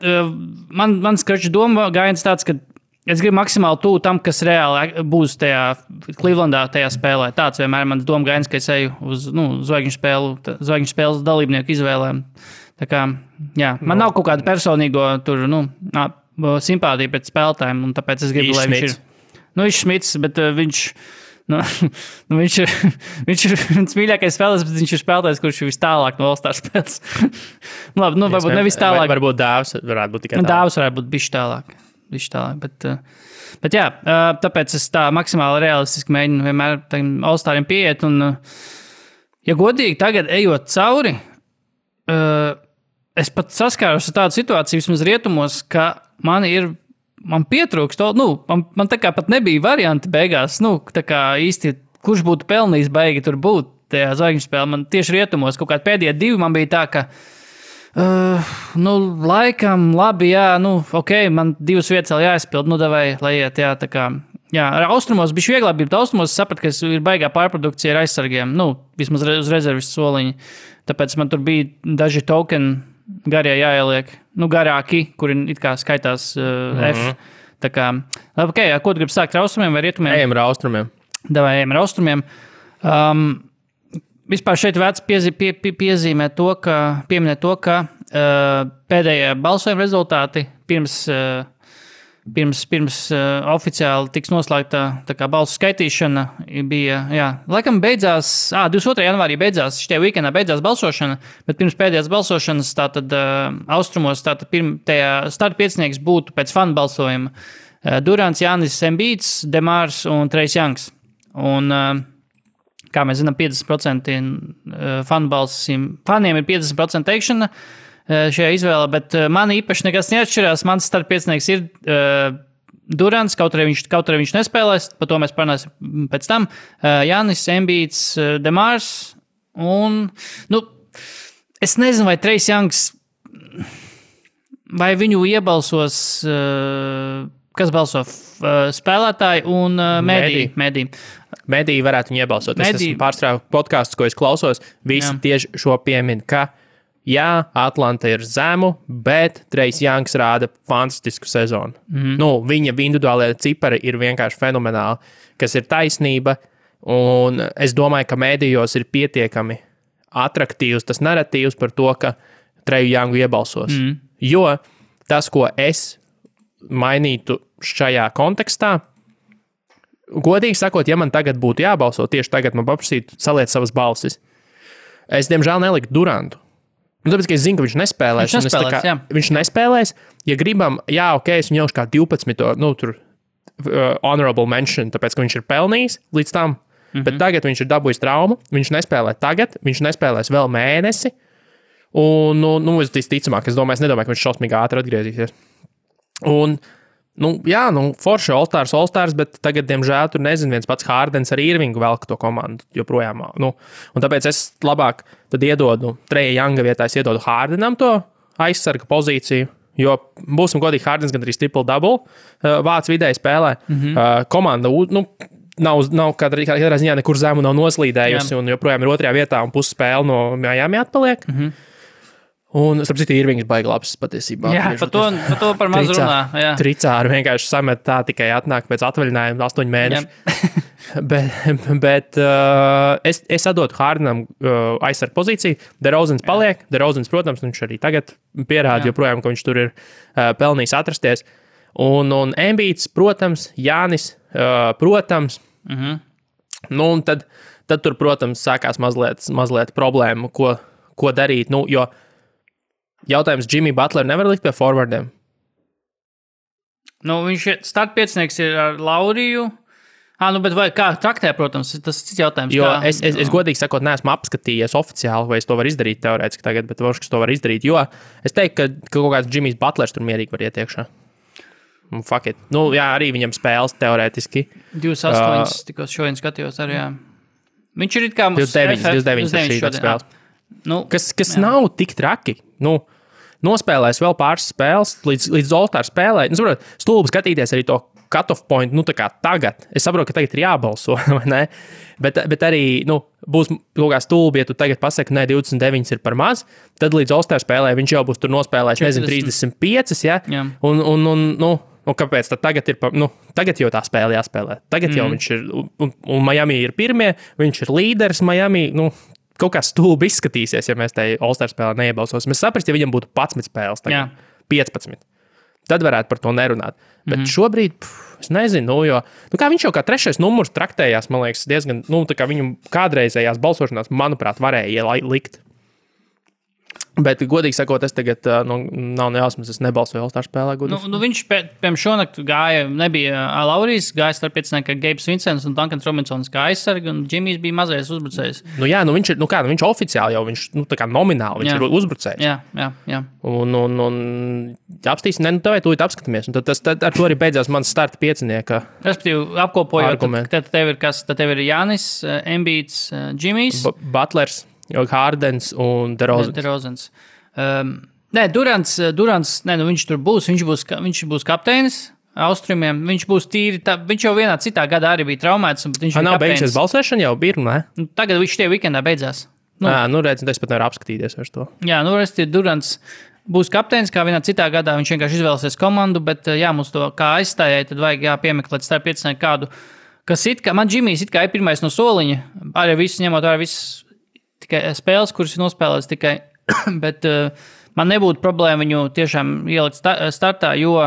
man skaču doma gājiens tāds, ka es gribu maksimāli tuvu tam, kas reāli būs tajā Clevelandā tajā spēlē. Tāds vienmēr mans doma gājiens, ka es eju uz zvaigžņu spēles dalībnieku izvēlēm. Tā kā, jā, man nav kaut kāda personīgo tur, simpātija pret spēlētājiem, un tāpēc es gribu, lai viņš ir. Viņš Šmits, bet viņš ir viens mīļākais spēlētājs, bet viņš ir spēlētājs, kurš ir vis tālāk no All-Star spēles. Labi, varbūt nevis tālāk. Varbūt Dāvs varētu būt tikai tālāk. Dāvs varētu būt bišķi tālāk. Bet jā, tāpēc es tā maksimāli realistiski mēģinu vienmēr All-Stariem pieiet, un, ja godīgi tagad ejot cauri, es pat saskāros ar tādu situāciju vismaz rietumos, ka man pietrūkst, man tā kā pat nebija varianti beigās, tā kā īsti, kurš būtu pelnījis baigi tur būt tajā zvaigžņu spēlē. Man tieši rietumos kaut kādi pēdējie 2 man bija tā, ka laikam, labi, jā, ok, man 2 vietas vēl jāizpild, davai, lai iet, jā, tā kā, jā, ar austrumos bišķi vieglāk bija, bet austrumos sapratu, ka ir baigā pārprodukcija ar aizsargiem, vismaz uz rezervis soliņi, tāpēc man tur bija daži tokeni garie jāieliek, garāki, kuri it kā skaitās F, tā kā, labi, ok, ko tu gribi sākt ar austrumiem vai rietumiem? Ejam ar austrumiem. Davai, ejam ar austrumiem. Vispār šeit vērts pieminēt to, ka pēdējie balsojuma rezultāti pirms pirms oficiāli tiks noslēgta tā kā balsu skaitīšana, bija, laikam beidzās, 22. janvārī beidzās, šitie weekendā beidzās balsošana, bet pirms pēdējās balsošanas tātad austrumos tātad tajā starta piecinieks būtu pēc fanu balsojuma Durants, Jānis Embiids, Demārs un Trejs Jangs. Un, kā mēs zinām, 50% faniem ir 50% teikšana šajā izvēlē, bet man īpaši nekas neatšķirās. Mans startpiecinieks ir Durants, kaut arī viņš nespēlēs, par to mēs parunāsim pēc tam. Jānis, Embiids, Demārs un, es nezinu, vai Trejs Jangs, vai viņu iebalsos, kas balso spēlētāji un mediji. Mediji varētu viņu iebalsot. Es esmu pārstrāvu podkastus, ko es klausos, visi tieši šo piemin, ka Atlanta ir zemu, bet Trejs Jangs rāda fantastisku sezonu. Viņa individuālie cipari ir vienkārši fenomenāli, kas ir taisnība, un es domāju, ka medijos ir pietiekami atraktīvs tas naratīvs par to, ka Treju Jangu iebalsos. Jo tas, ko es mainītu šajā kontekstā, godīgi sakot, ja man tagad būtu jābalso, tieši tagad man paprasītu saliet savas balsis. Es, diemžēl, neliku Durantu. Tāpēc, ka es zinu, ka viņš nespēlēs. Viņš nespēlēs. Ja gribam, es viņu ņemšu kā 12. Honorable mention, tāpēc, ka viņš ir pelnījis līdz tam. Bet tagad viņš ir dabūjis traumu. Viņš nespēlē tagad. Viņš nespēlēs vēl mēnesi. Un, es nedomāju, ka viņš šausmīgi ātri atgriezīsies. Un, forši All-Stars, bet tagad, diemžēl, tur nezinu, viens pats Hardens ar Irvingu velk to komandu joprojām. Un tāpēc es labāk tad iedodu Treja Janga vietā, es iedodu Hardenam to aizsarga pozīciju, jo būsim godīgi, Hardens gan arī triple-double vāc vidēji spēlē. Komanda, nav katrā ziņā nekur zemu nav noslīdējusi un joprojām ir otrajā vietā un pusspēle no Miami atpaliek. Un, starp citu, Irvings baigi labs patiesībā. Jā, par to par maz runā. Tricāri vienkārši samet tā tikai atnāk pēc atvaļinājuma 8 mēneši. bet es atdotu Hardenam aizsargu pozīciju. DeRozans paliek. DeRozans, protams, viņš arī tagad pierāda joprojām, ka viņš tur ir pelnījis atrasties. Un Embiids, protams, Jānis, protams. Un tad tur, protams, sākās mazliet problēma, ko darīt. Jo jautājums Jimmy Butler nevar likt pie forwardiem. Viņš startpiecinieks ir ar Lauriju. Bet vai kā traktē, protams, tas ir cits jautājums. Jo es godīgi sakot, neesmu apskatījies oficiāli, vai es to varu izdarīt teorētiski tagad, bet varbūt, ka to var izdarīt, jo es teiktu, ka kaut kāds Jimmys Butlers tur mierīgi var iet iekšā. Fuck it. Arī viņam spēles teorētiski. 28 tikko šodien skatījos arī, Viņš ir it kā 29 spēles. Kas nav tik traki. Nospēlēs vēl pāris spēles līdz All-Star spēlē. Stulbi skatīties arī to cut-off point, tā kā tagad. Es saprotu, ka tagad ir jābalso, vai ne? Bet arī, būs kaut kā stulbi, ja tu tagad pasaki, ka 29 ir par maz, tad līdz All-Star spēlē viņš jau būs tur nospēlējis, 35, ja? Un kāpēc tad tagad ir, tagad jau tā spēle jāspēlē. Tagad jau viņš ir, un Miami ir pirmie, viņš ir līderis Miami, kaut kā stulbi izskatīsies, ja mēs tai All-Star spēlē neiebalsosim. Mēs saprast, ja viņam būtu 11 spēles, tagad 15. Tad varētu par to nerunāt. Bet šobrīd, es nezinu, jo kā viņš jau kā 3. numurs traktējās, man liekas, diezgan, tā kā viņu kādreizējās balsošanās, manuprāt, varēja likt. Bet, godīgi sakot, es tagad nav nejausmas, es nebalsoju All-Star spēlē. Viņš pēc šonakt gāja, nebija Laurijs, gāja starppiecinieki Gabes Vincents un Duncans Robinsons kā aizsargi, un Džimijs bija mazais uzbrucējs. Viņš ir, viņš oficiāli jau, viņš, tā kā nomināli, viņš ir uzbrucējs. Jā. Un apstīsim, tev tūlīt apskatāmies, un tad ar to arī beidzās mans starta piecinieka. Respektīvi, apkopojot, tad tev ir kas? Tad tev ir Jānis, Embiids, Džimijs. Butlers. Hardens un DeRozans. Durants, viņš tur būs, viņš būs kapteinis Austrumiem, viņš būs tīri, viņš jau vienā citā gadā arī bija traumēts. Nav beigusies balsēšana jau bija, ne? Tagad viņš tie weekendā beidzās. Redz, es pat nevaru apskatīties vairs to. Jā, Durants būs kapteinis, kā vienā citā gadā, viņš vienkārši izvēlēsies komandu, bet mums to kā aizstājai, tad vajag piemeklēt starp piecinieki kādu, kas man Džimijs it kā ir pirmais no soliņa, arī viss ņemot arī viss tikai spēles, kuras ir nospēlēts tikai, bet man nebūtu problēma viņu tiešām ielikt startā, jo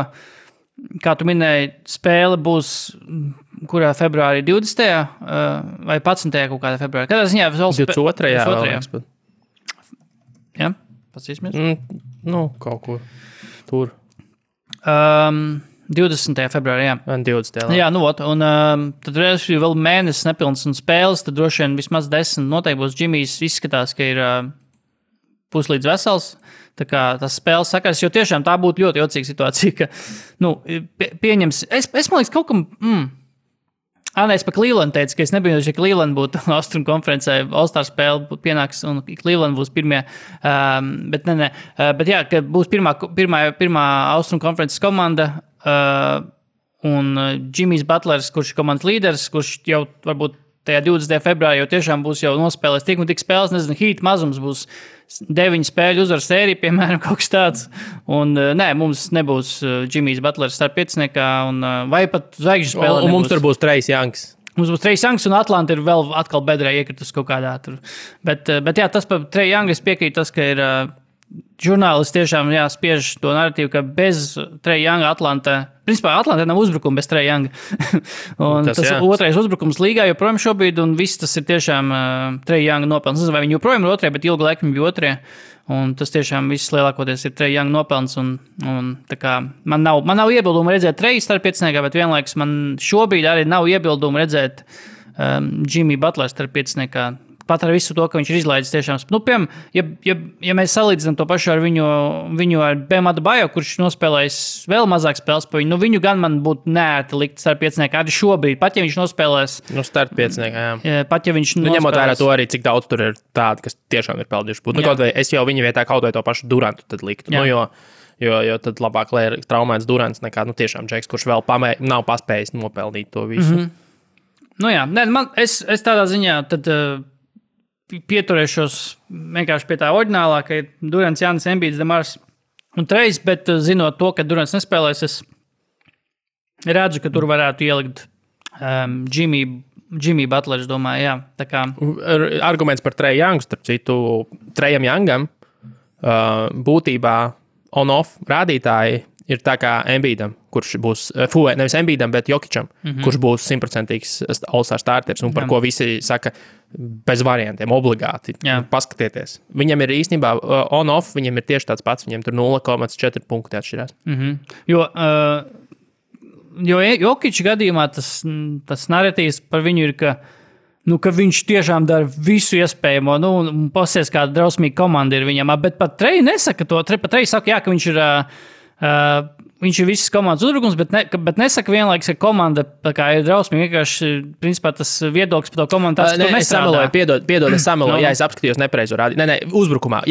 kā tu minēji, spēle būs kurā februārī 20. Vai 11. kaut kādā februārī. Kādā ziņā? 22. Jā, pasīsimies. Kaut kur tur. 20. februārī, jā. 20. Jā, un tad vēl mēnesis nepilns un spēles, tad droši vien vismaz 10 noteikti būs. Džimijs izskatās, ka ir puslīdz vesels. Tā kā tas spēles sakars, jo tiešām tā būtu ļoti jocīga situācija, ka, pieņems, es man liekas kaut kam, es pa Cleveland teicu, ka es nebiju, ka Cleveland būtu Austrum konferencē, All-Star spēle būtu pienāks un Cleveland būs pirmie, bet bet jā, ka būs pirmā Austrum konferences komanda, un Jimmy's Butlers, kurš ir komandas līderis, kurš jau varbūt tajā 20. februārī jau tiešām būs jau nospēlēs tik un tik spēles, nezinu, Heat mazums būs 9 spēļu uzvaru sērija, piemēram, kaut kas tāds. Un mums nebūs Jimmy's Butlers starp pieciniekā, vai pat zvaigžņu spēle. Un mums tur būs Trace Youngs. Mums būs Trace Youngs, un Atlanta ir vēl atkal bedrē iekritus kaut kādā tur. Bet jā, tas par Trace Youngu es piekrītu tas, ka ir žurnālisti tiešām spiež to narratīvu, ka bez Trace Younga principā Atlantā nav uzbrukuma bez Trace Younga. Un tas otrais uzbrukums līgā joprojām šobrīd, un viss tas ir tiešām Trace Younga nopelns. Nezinu, vai viņi joprojām ir otrie, bet ilgu laiku viņi bija otrie. Un tas tiešām viss lielākoties ir Trace Younga nopelns. Un tā kā man nav iebildumu redzēt Trace starp pieciniekā, bet vienlaikus man šobrīd arī nav iebildumu redzēt Jimmy Butler starp pieciniekā. Pat ar visu to, ka viņš ir izlaidis tiešām. Piemēram, ja mēs salīdzinām to pašu ar viņu ar Bam Adebayo, kurš nospēlējis vēl mazāk spēles pa viņu, viņu gan man būtu neērti likt starp pieciniekā arī šobrīd, pat ja viņš nospēlēs. Starp pieciniekā, jā. Pat ja viņš nospēlēs. Ņemot vērā to arī, cik daudz tur ir tādi, kas tiešām ir pelnījuši būt. Kaut vai es jau viņa vietā kaut vai to pašu Durantu tad liktu. Jo tad labāk, lai ir traumēts Durants nekā tiešām Džeks, kurš vēl nav paspējis nopelnīt to visu. Es tādā ziņā tad pieturēšos vienkārši pie tā oriģinālā, ka ir Durants, Jānis, Embiids, Demars un Trace, bet zinot to, ka Durants nespēlēs, es redzu, ka tur varētu ielikt Jimmy Butler, domāju, jā. Tā kā arguments par Trace Youngu, starp citu, Trejam Youngam būtībā on-off rādītāji ir tā kā Embiidam, kurš būs, nevis Embiidam, bet Jokičam, kurš būs 100% All-Star starters, un par ko visi saka bez variantiem, obligāti. Paskatieties. Viņam ir īstenībā on-off, viņam ir tieši tāds pats, viņam tur 0,4 punkti atšķirās. Jo Jokiča gadījumā tas narratīvs par viņu ir, ka viņš tiešām dara visu iespējamo, un pasies kāda drausmīga komanda ir viņam, bet pat Trey nesaka to, pat Trey saka, ka viņš ir visas komandas uzbrukums, bet nesaka vienlaiks, ka komanda ir drausmīga. Vienkārši, principā, tas viedoklis par to komandu tāds, ka es sameloju, piedod, es sameloju, jā, es apskatījos nepareizo rādītāju. Uzbrukumā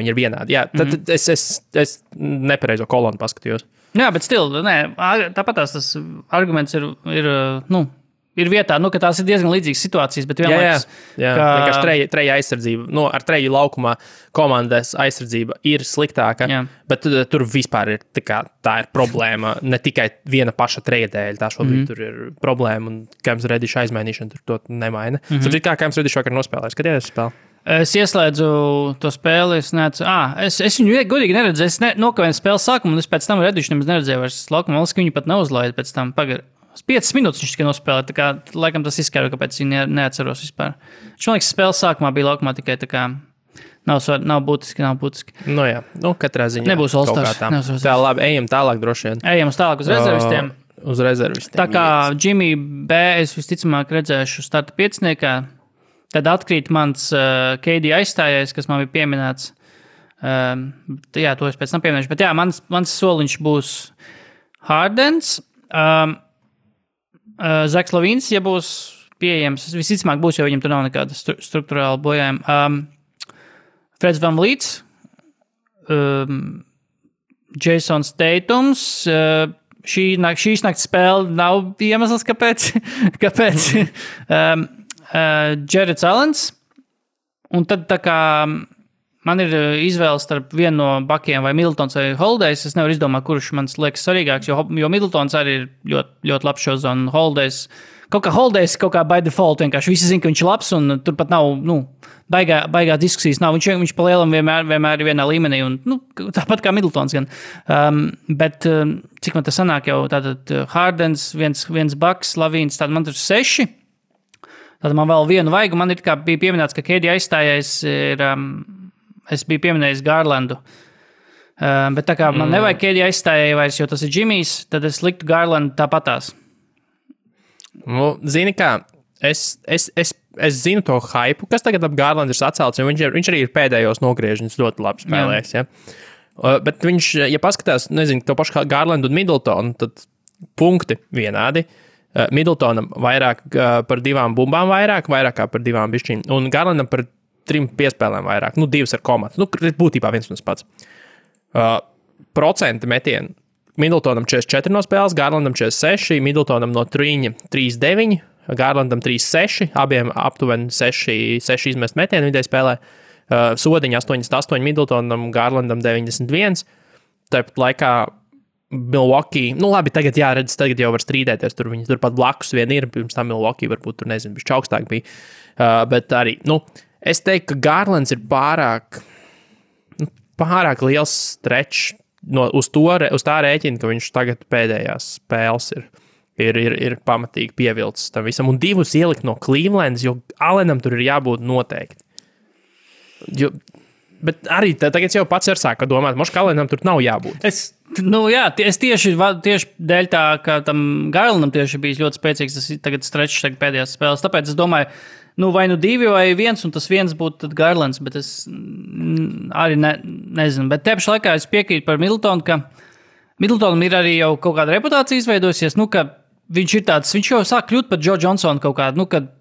viņi ir vienādi. Jā, tad es nepareizo kolonu paskatījos. Jā, bet tāpat tas arguments ir vietā, ka tās ir diezgan līdzīgas situācijas, bet vienlaikus... Vienkārši treja aizsardzība, ar treju laukumā komandas aizsardzība ir sliktāka, bet tur vispār ir tā ir problēma, ne tikai viena paša treja dēļ, tā šobrīd tur ir problēma, un Cams Reddish aizmainīšana tur to nemaina. Saprīt, kā Cams Reddish vakar nospēlēja, skaties spēli? Es ieslēdzu to spēli, es viņu godīgi neredzēju, es nokavēju spēles sākumu, un es pēc tam Reddish nemaz neredzēju vairs laukumu, ka viņu pat neuzlaida pēc tam 5 minūtes viņš tikai nospēlēja, tā kā laikam tas izskaidro, kāpēc viņi neatceros vispār. Viņš, man liekas, spēles sākumā bija laukumā tikai tā kā nav būtiski. Katrā ziņā. Nebūs All-Stars. Tā labi, ejam tālāk droši vien. Ejam tālāk uz rezervistiem. Uz rezervistiem. Tā kā Jimmy B es visticamāk redzēšu starta pieciniekā, tad atkrīt mans KD aizstājais, kas man bija pieminēts. Jā, to es pēc tam pieminēšu, bet jā, mans soliņš būs Hardens. Zaks Lavīns, ja būs pieejams, visticamāk būs, jo viņam tur nav nekāda struktūrāla bojājuma. Freds VanVleets, Jasons Tatums, šīs nakts spēle nav iemesls, kāpēc. Jarrets Allens, un tad tā kā man ir izvēle starp vienu no bakiem vai Middletons vai Holidays. Es nevaru izdomāt, kurš man liekas svarīgāks, jo Middletons arī ir ļoti, ļoti labs šos, un Holidays kaut kā Holidays kaut kā by default vienkārši visi zina, ka viņš ir labs un tur pat nav, baigā diskusijas nav. Viņš pa lielam vienmēr ir vienā līmenī un, tāpat kā Middletons gan. Bet cik man tas sanāk jau tātad Hardens, viens Bucks, Lavīns, tātad man tur 6. Tad man vēl vienu vajag, man ir kā bija pieminēts, ka KD aizstājais ir, es biju pieminējis Garlandu. Bet tā kā man nevajag KD aizstājai vairs, jo tas ir Jimmy's, tad es liktu Garlandu tāpatās. Zini kā, es zinu to hypu, kas tagad ap Garlandu ir sacelts, jo viņš arī ir pēdējos nogriežņus ļoti labi spēlējis. Ja? Bet viņš, ja paskatās, nezinu, to pašu Garlandu un Middletonu, tad punkti vienādi. Middletonam vairāk par 2 bumbām vairāk kā par 2 bišķīm, un Garlandam par 3 piespēlēm vairāk, 2 ar komatu. Būtībā viens un tas pats. Procenti metienu. Middletonam 44 no spēles, Garlandam 46, Middletonam no 3,9, Garlandam 3,6, abiem aptuveni 6 izmest metienu vidēji spēlē. Sodiņa 88, Middletonam, Garlandam 91. Tāpat laikā Milwaukee, labi, tagad jāredz, tagad jau var strīdēties, viņi turpat blakus vien ir, pirms tam Milwaukee varbūt tur, nezinu, bišķi augstāk bija, bet arī, es teiktu, ka Garlands ir pārāk liels stretch uz tā rēķina, ka viņš tagad pēdējās spēles ir pamatīgi pievilcis tam visam, un 2 ielikt no Clevelands, jo Allenam tur ir jābūt noteikti. Bet arī tagad jau pats ir sāka domāt, moš Allenam tur nav jābūt. Es tieši dēļ tā, ka tam Garlandam tieši bijis ļoti spēcīgs, tas tagad stretch pēdējās spēles, tāpēc es domāju, vai 2 vai 1, un tas 1 būtu tad Garlands, bet es arī nezinu. Bet te pašā laikā es piekrītu par Middletonu, ka Middletonam ir arī jau kaut kāda reputācija izveidojusies, ka viņš jau sāk kļūt par Joe Johnsonu kaut kādu, kad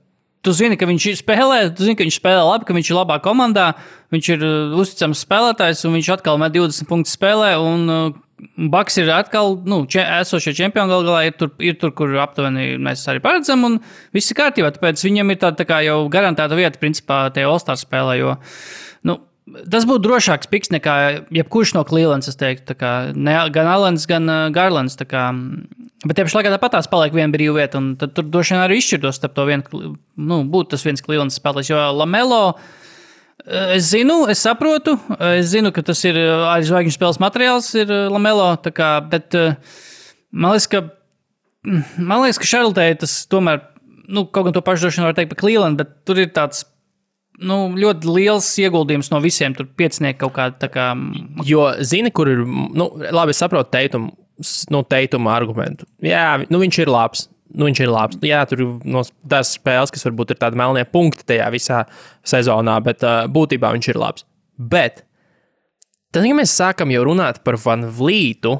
tu zini, ka viņš spēlē, tu zini, ka viņš spēlē labi, ka viņš ir labā komandā, viņš ir uzticams spēlētājs, un viņš atkal met 20 punktu spēlē, un Bucks ir atkal, esošie čempioni galā ir tur, kur aptuveni mēs arī paredzam, un viss ir kārtībā, tāpēc viņam ir tā kā jau garantēta vieta, principā, tajā All-Star spēlē, jo, tas būtu drošāks piks nekā jebkurš no Clevelands, es teiktu, gan Allens, gan Garlands, bet tie pašlaikā tāpatās paliek viena brīva vieta, un tad tur droši vien arī izšķirtos starp to vienu, būtu tas viens Clevelands spēlētājs, jo Lamelo, es saprotu, ka tas ir arī zvaigžņu spēles materiāls ir Lamelo, bet man liekas, ka Charlotē tas tomēr, kaut gan to pašu droši vien var teikt par Cleveland, bet tur ir tāds ļoti liels ieguldījums no visiem, tur 5 kaut kāda, Jo, zini, kur ir, labi, es saprotu Teituma argumentu. Jā, viņš ir labs. Jā, tur ir tās spēles, kas varbūt ir tādi melnie punkti tajā visā sezonā, bet būtībā viņš ir labs. Bet, tad, ja mēs sākam jau runāt par Van Vlītu,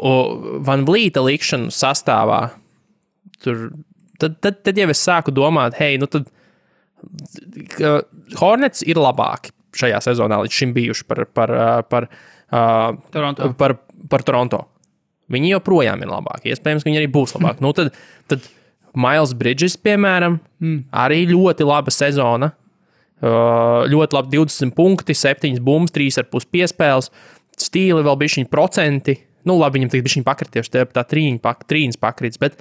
Van Vlīta likšanu sastāvā, tad jau es sāku domāt, tad Hornets ir labāki šajā sezonā līdz šim bijuši par Toronto. Viņi joprojām ir labāki. Iespējams, ka viņi arī būs labāki. Tad Miles Bridges, piemēram, arī ļoti laba sezona. Ļoti labi 20 punkti, 7 bumbas, 3,5 piespēles. Stīli vēl bišķiņi procenti. Labi, viņam tagad bišķiņi pakrities, tā trīņas pakrits, bet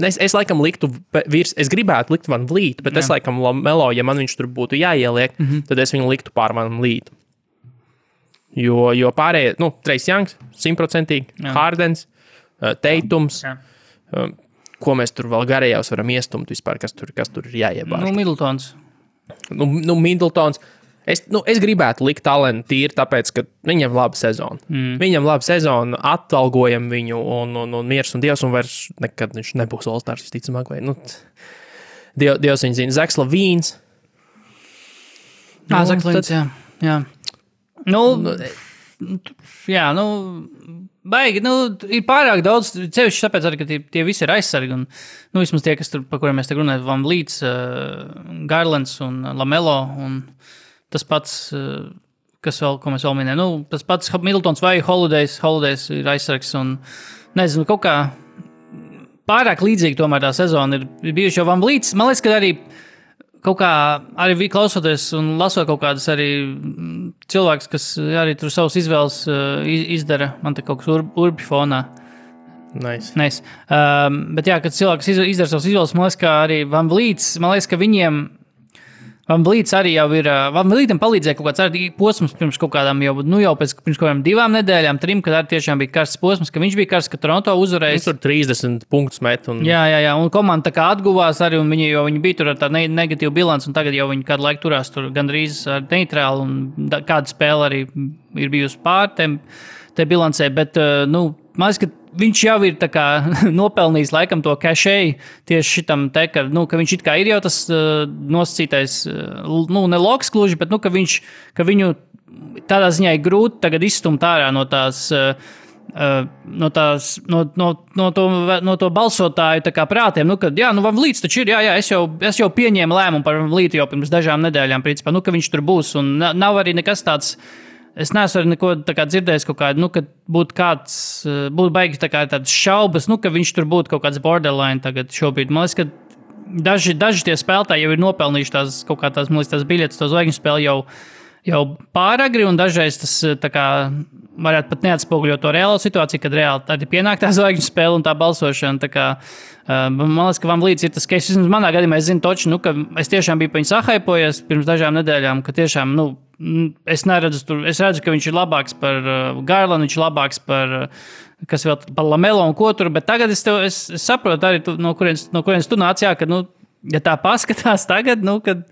es laikam liktu es gribētu likt Van Vlītu, bet es laikam Lamelo, ja man viņš tur būtu jāieliek, tad es viņu liktu pār Van Vlītu. Jo pārējie, Trace Youngs, 100%, Hardens, Teitums, ko mēs tur vēl garējās varam iestumt vispār, kas tur ir jāiebāž. Middletons. Middletons. Es gribētu likt Allenu tīri, tāpēc, ka viņam laba sezona. Viņam laba sezona, atalgojam viņu un miers un Dievs, un vairs nekad viņš nebūs All-Stars, visticamāk, vai, Dievs viņu zina. Zaks Lavīns. Zaks Lavīns, jā. Baigi, ir pārāk daudz, cevišķi tāpēc arī, ka tie visi ir aizsargi, un, vismaz tie, kas tur, par kuriem mēs te runājam, Van Vlīts, Garlands un Lamelo, un tas pats, ko mēs vēl minējam, tas pats Middletons vai Holidays ir aizsargs, un, nezinu, kaut kā pārāk līdzīgi tomēr tā sezona ir bijuši jau Van Vlīts, man liekas, ka arī kaut kā arī klausoties un lasot kaut kādas arī cilvēks, kas arī tur savus izvēles izdara, man te kaut kas urbi fonā. Nice. Bet jā, kad cilvēks izdara savus izvēles, man liekas, ka arī Van Vliets, man liekas, ka viņiem Van Vliets arī jau ir, Van Vlietam palīdzēja kaut kāds arī posms pirms kaut kādām jau pēc pirms kaut kādām 2 nedēļām, 3, kad arī tiešām bija karsts posms, ka viņš bija karsts, ka Toronto uzvarēja. Viņš tur 30 punktus met. Jā, un komanda tā kā atguvās arī, un viņi bija tur ar tādu negatīvu bilanci, un tagad jau viņi kādu laiku turās tur gandrīz ar neitrālu, un kāda spēle arī ir bijusi pār te bilancē, bet, man liekas, ka viņš jau ir tā kā nopelnījis laikam to cachet tieši šitam te, ka viņš it kā ir jau tas nosacītais, ne loks kluži, bet, ka viņu tādā ziņā ir grūti tagad izstumt ārā no to balsotāju tā kā prātiem, kad, Van Vliets taču ir, es jau pieņēmu lēmumu par Van Vlietu jau pirms dažām nedēļām, principā, ka viņš tur būs, un nav arī nekas tāds. Es neesmu arī neko dzirdējis, ka būtu baigi tādas šaubas, ka viņš tur būtu kaut kāds borderline tagad šobrīd. Man liekas, ka daži tie spēlētāji jau ir nopelnījuši tās biļetes, to zvaigžņu spēli jau pāragri, un dažreiz tas varētu pat neatspoguļot to reālo situāciju, kad reāli arī pienāk tā zvaigžņu spēle un tā balsošana. Man liekas, ka Van Vliets ir tas, ka vismaz manā gadījumā es zinu toči, ka es tiešām biju pa viņu sahaipojies pirms dažām nedēļām, ka tiešām, es redzu, ka viņš ir labāks par Garlandu, viņš ir labāks par Lamelo un ko tur, bet tagad es saprotu arī, no kurienes tu nāc, ka, ja tā paskatās tagad, kad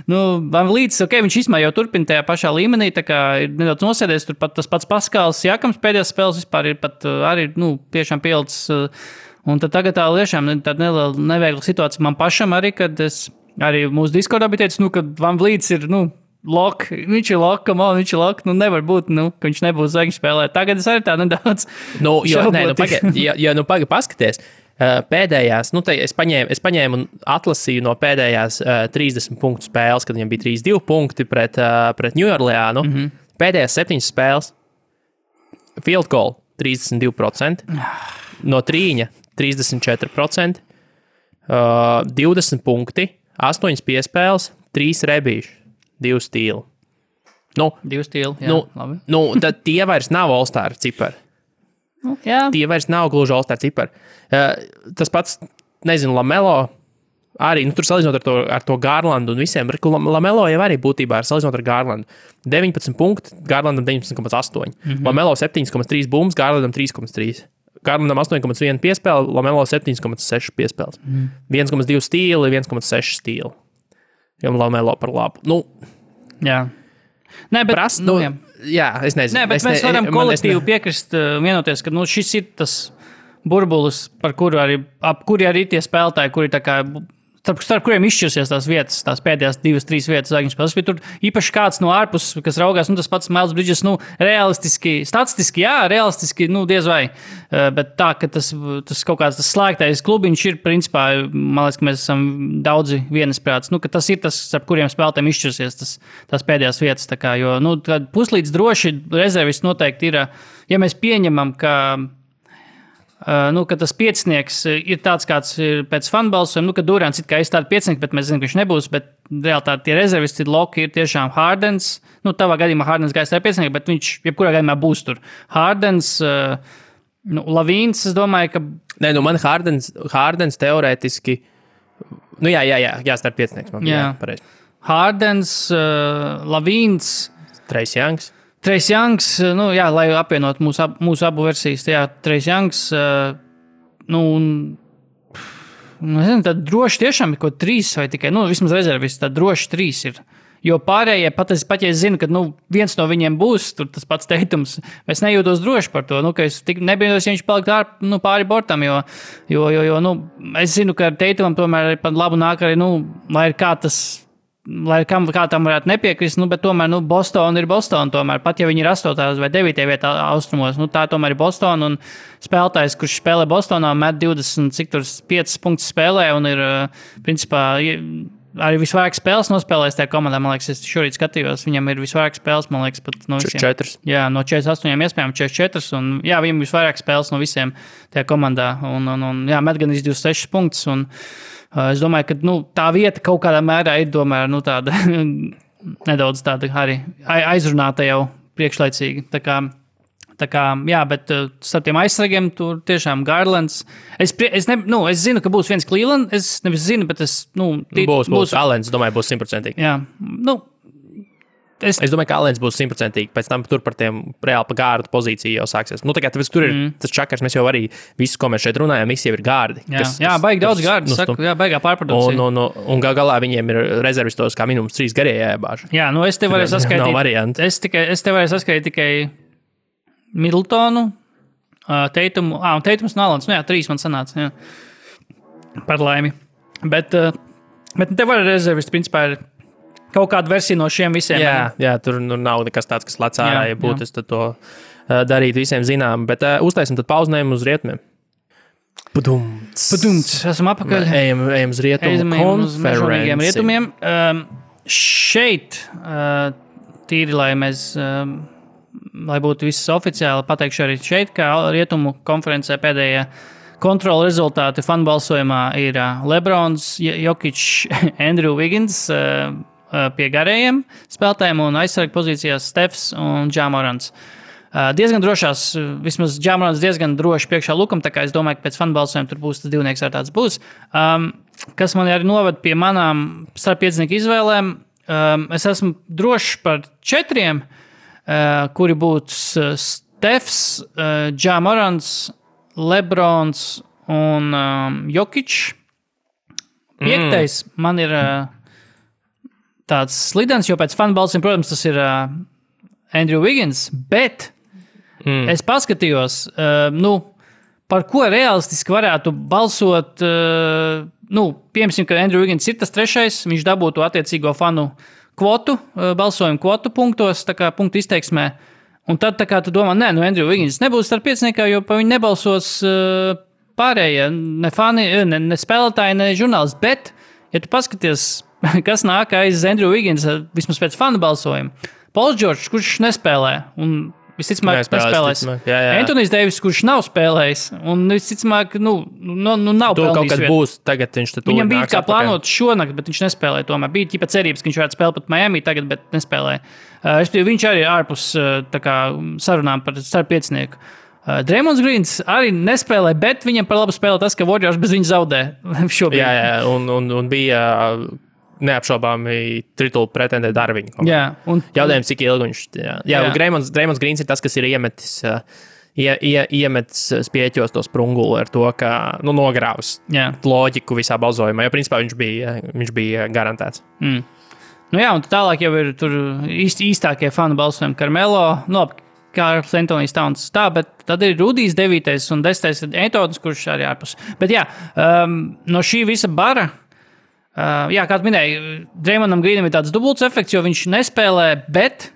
Van Vliets, viņš īstenībā jau turpina tajā pašā līmenī, tā kā ir nedaudz nosēdies, tur pat tas pats Paskals Jakams pēdējās spēles vispār ir pat arī, tiešām pielicis, un tad tagad tā tiešām tāda neliela neviegla situācija man pašam arī, kad es arī mūsu Discordā bija teicis, ka Van Vliets ir, lok, viņš ir lok, viņš ir lok, nevar būt, ka viņš nebūs zvaigžņu spēlē. Tagad es arī tā nedaudz pagaid paskaties. Pēdējās, es paņēmu un atlasīju no pēdējās 30 punktu spēles, kad viņam bija 32 punkti pret New Orleānu. Pēdējās 7 spēles field goal 32%, no trīņa 34%, 20 punkti, 8 piespēles, 3 rebīši. 2 stīli. 2 stīli, jā, labi. Tad tie vairs nav All-Star cipari. Jā. Tie vairs nav gluži All-Star cipari. Tas pats, Lamelo arī, tur salīdzinot ar to Garlandu un visiem, Lamelo jau arī būtībā ir salīdzinot ar Garlandu. 19 punkti, Garlandam 19,8. Lamelo 7,3 bumbas, Garlandam 3,3. Garlandam 8,1 piespēle, Lamelo 7,6 piespēles. 1,2 stīli, 1,6 stīli. Jo Lamelo par labu. Jā. Nē, bet jā, es nezinu. Nē, bet mēs varam kolektīvi piekrist, vienoties, ka šis ir tas burbulis, ap kuri arī tie spēlētāji, kuri tā kā starp kuriem izšķirsies tās vietas, tās pēdējās 2-3 vietas zvaigžņu spēles. Tur īpaši kāds no ārpuses, kas raugās, tas pats Miles Bridges, realistiski, statistiski, realistiski, diez vai. Bet tā, ka tas kaut kāds tas slēgtais klubiņš ir, principā, man liekas, ka mēs esam daudzi vienisprāts, ka tas ir tas, starp kuriem spēlētājiem izšķirsies tās pēdējās vietas. Tā kā, jo, puslīdz droši rezervists noteikti ir, ja mēs pieņemam, ka tas piecinieks ir tāds, kāds ir pēc fanbalsojuma, ka Durants it kā ir tāds piecinieks, bet mēs zinām, ka viņš nebūs, bet reāli tie rezervisti loki ir tiešām Hardens, tavā gadījumā Hardens gājis tā piecinieks, bet viņš jebkurā gadījumā būs tur. Hardens, Lavīns, es domāju, ka... Nē, man Hardens teorētiski, starp piecinieks. Jā, Hardens, Lavīns... Trace Youngs. Trace Youngs, lai apvienot mūsu abu versijas, Trace Youngs, tad droši tiešām ir kaut 3 vai tikai, vismaz rezervists, tad droši 3 ir. Jo pārējie, pat ja es zinu, ka viens no viņiem būs, tur tas pats Teitums, es nejūtos droši par to, ka es nebijos, ja viņš palikt pāri bortam, jo es zinu, ka Teitumam tomēr ir pat labu nāk arī, lai ir kā tas... Lai kā tam varētu nepiekrist, bet tomēr Boston ir Boston. Tomēr, pat ja viņi ir 8. vai 9. vietā austrumos, tā tomēr ir Boston. Un spēlētājs, kurš spēlē Bostonā, met 25 punktus spēlē un ir, principā, arī visvairāk spēles nospēlējis tajā komandā. Man liekas, es šorīt skatījos, viņam ir visvairāk spēles, man liekas, pat no visiem. 4. Jā, no 48 iespējām 44. Un, viņam ir visvairāk spēles no visiem tajā komandā. Un met gan 26 punktus. Un, es domāju, ka tā vieta kaut kādā mērā ir tāda nedaudz tāda arī aizrunāta jau priekšlaicīgi. Tā kā Tā kā, jā, bet starp tiem aizsargiem tur tiešām Garlands. Es zinu, ka būs viens Cleveland. Es nevis zinu, bet būs Allens, domāju, būs 100%. Jā, Es domāju, ka Allens būs 100%. Pēc tam tur par tiem reāli pa gārdu pozīciju jau sāksies. Tā kā tur ir tas čakars, mēs jau arī visu, ko mēs šeit runājam, visi jau ir gārdi. Jā, baigi daudz gārdu, jā, baigā pārprodukcija. Un galā viņiem ir rezervistos kā minimums 3 garie jāiebāž. Jā, es te varēju saskaitīt. Nav variantu. Es te varēju saskaitīt tikai Middletonu, Teitumu, un Teitums un Allens. 3 man sanāca, jā. Par laimi. Bet te var rezervisti, principā, ir kaut kāda versija no šiem visiem. Jā, tur nav nekas tāds, kas lec ārā, ja būtu, es to darītu visiem zinām. Bet uztaisim tad pauznējumu uz rietumiem. Padumts. Esam apakaļ. Ejam uz rietumu konferenci. Rietumiem. Šeit, tīri, lai būtu viss oficiāli, pateikšu arī šeit, ka rietumu konferencē pēdējā kontrola rezultāti fanbalsojumā ir Lebrons, Jokic, Andrew Wiggins, pie garējiem spēlētājiem un aizsargu pozīcijās Stefs un Ja Morants. Diezgan drošās, vismaz Ja Morants diezgan droši priekšā Lukam, tā kā es domāju, ka pēc fanbalsojuma tur būs tas divnieks ar tāds būs. Kas man arī noved pie manām starppiecinieku izvēlēm, es esmu drošs par 4, kuri būtu Stefs, Ja Morants, Lebrons un Jokic. 5. Man ir tāds slidens, jo pēc fanbalsiem, protams, tas ir Andrew Wiggins, bet es paskatījos, par ko realistiski varētu balsot, piemēram, ka Andrew Wiggins ir tas 3, viņš dabūtu attiecīgo fanu kvotu, balsojumu kvotu punktos, tā kā punktu izteiksmē, un tad tā kā tu domā, Andrew Wiggins nebūs starp pieciniekā, jo pa viņu nebalsos pārējie, ne fani, ne spēlētāji, ne žurnālisti, bet, ja tu paskaties, kas nāk aiz Andrew Wiggins, vismaz pēc fanu balsojuma. Pauls Džordžs, kurš nespēlē, un visticamāk nespēlēs. Antonijs Deivis, kurš nav spēlējis, un visticamāk, nav pelnījis. Kaut kas būs, tagad viņš te viņam bija kā plānot šonakt, bet viņš nespēlēja tomēr. Bija ķipa cerības, ka viņš varētu spēlēt pat Miami tagad, bet nespēlēja. Viņš arī ārpus sarunām par starppiecinieku. Draymonds Greens arī nespēlē, bet viņam par labu spēlē tas, ka Warriors bez viņa zaudē šobrīd. Jā, un bija neapšaubāmi titulu pretendē Darviņu. Jautājums, cik ilgi viņš... Jā. Draymonds Greens ir tas, kas ir iemetis spieķos to sprunguli ar to, ka nogrāvs loģiku visā balsojumā, jo principā viņš bija garantēts. Un tālāk jau ir tur īstākie fanu balsojumi Carmelo, Kārls Antonijs Towns bet tad ir Rudijs 9. un 10. ir Antons, kurš arī ārpus. Bet no šī visa bara, kā tu minēji, Draymondam Greenam ir tāds dubults efekts, jo viņš nespēlē, bet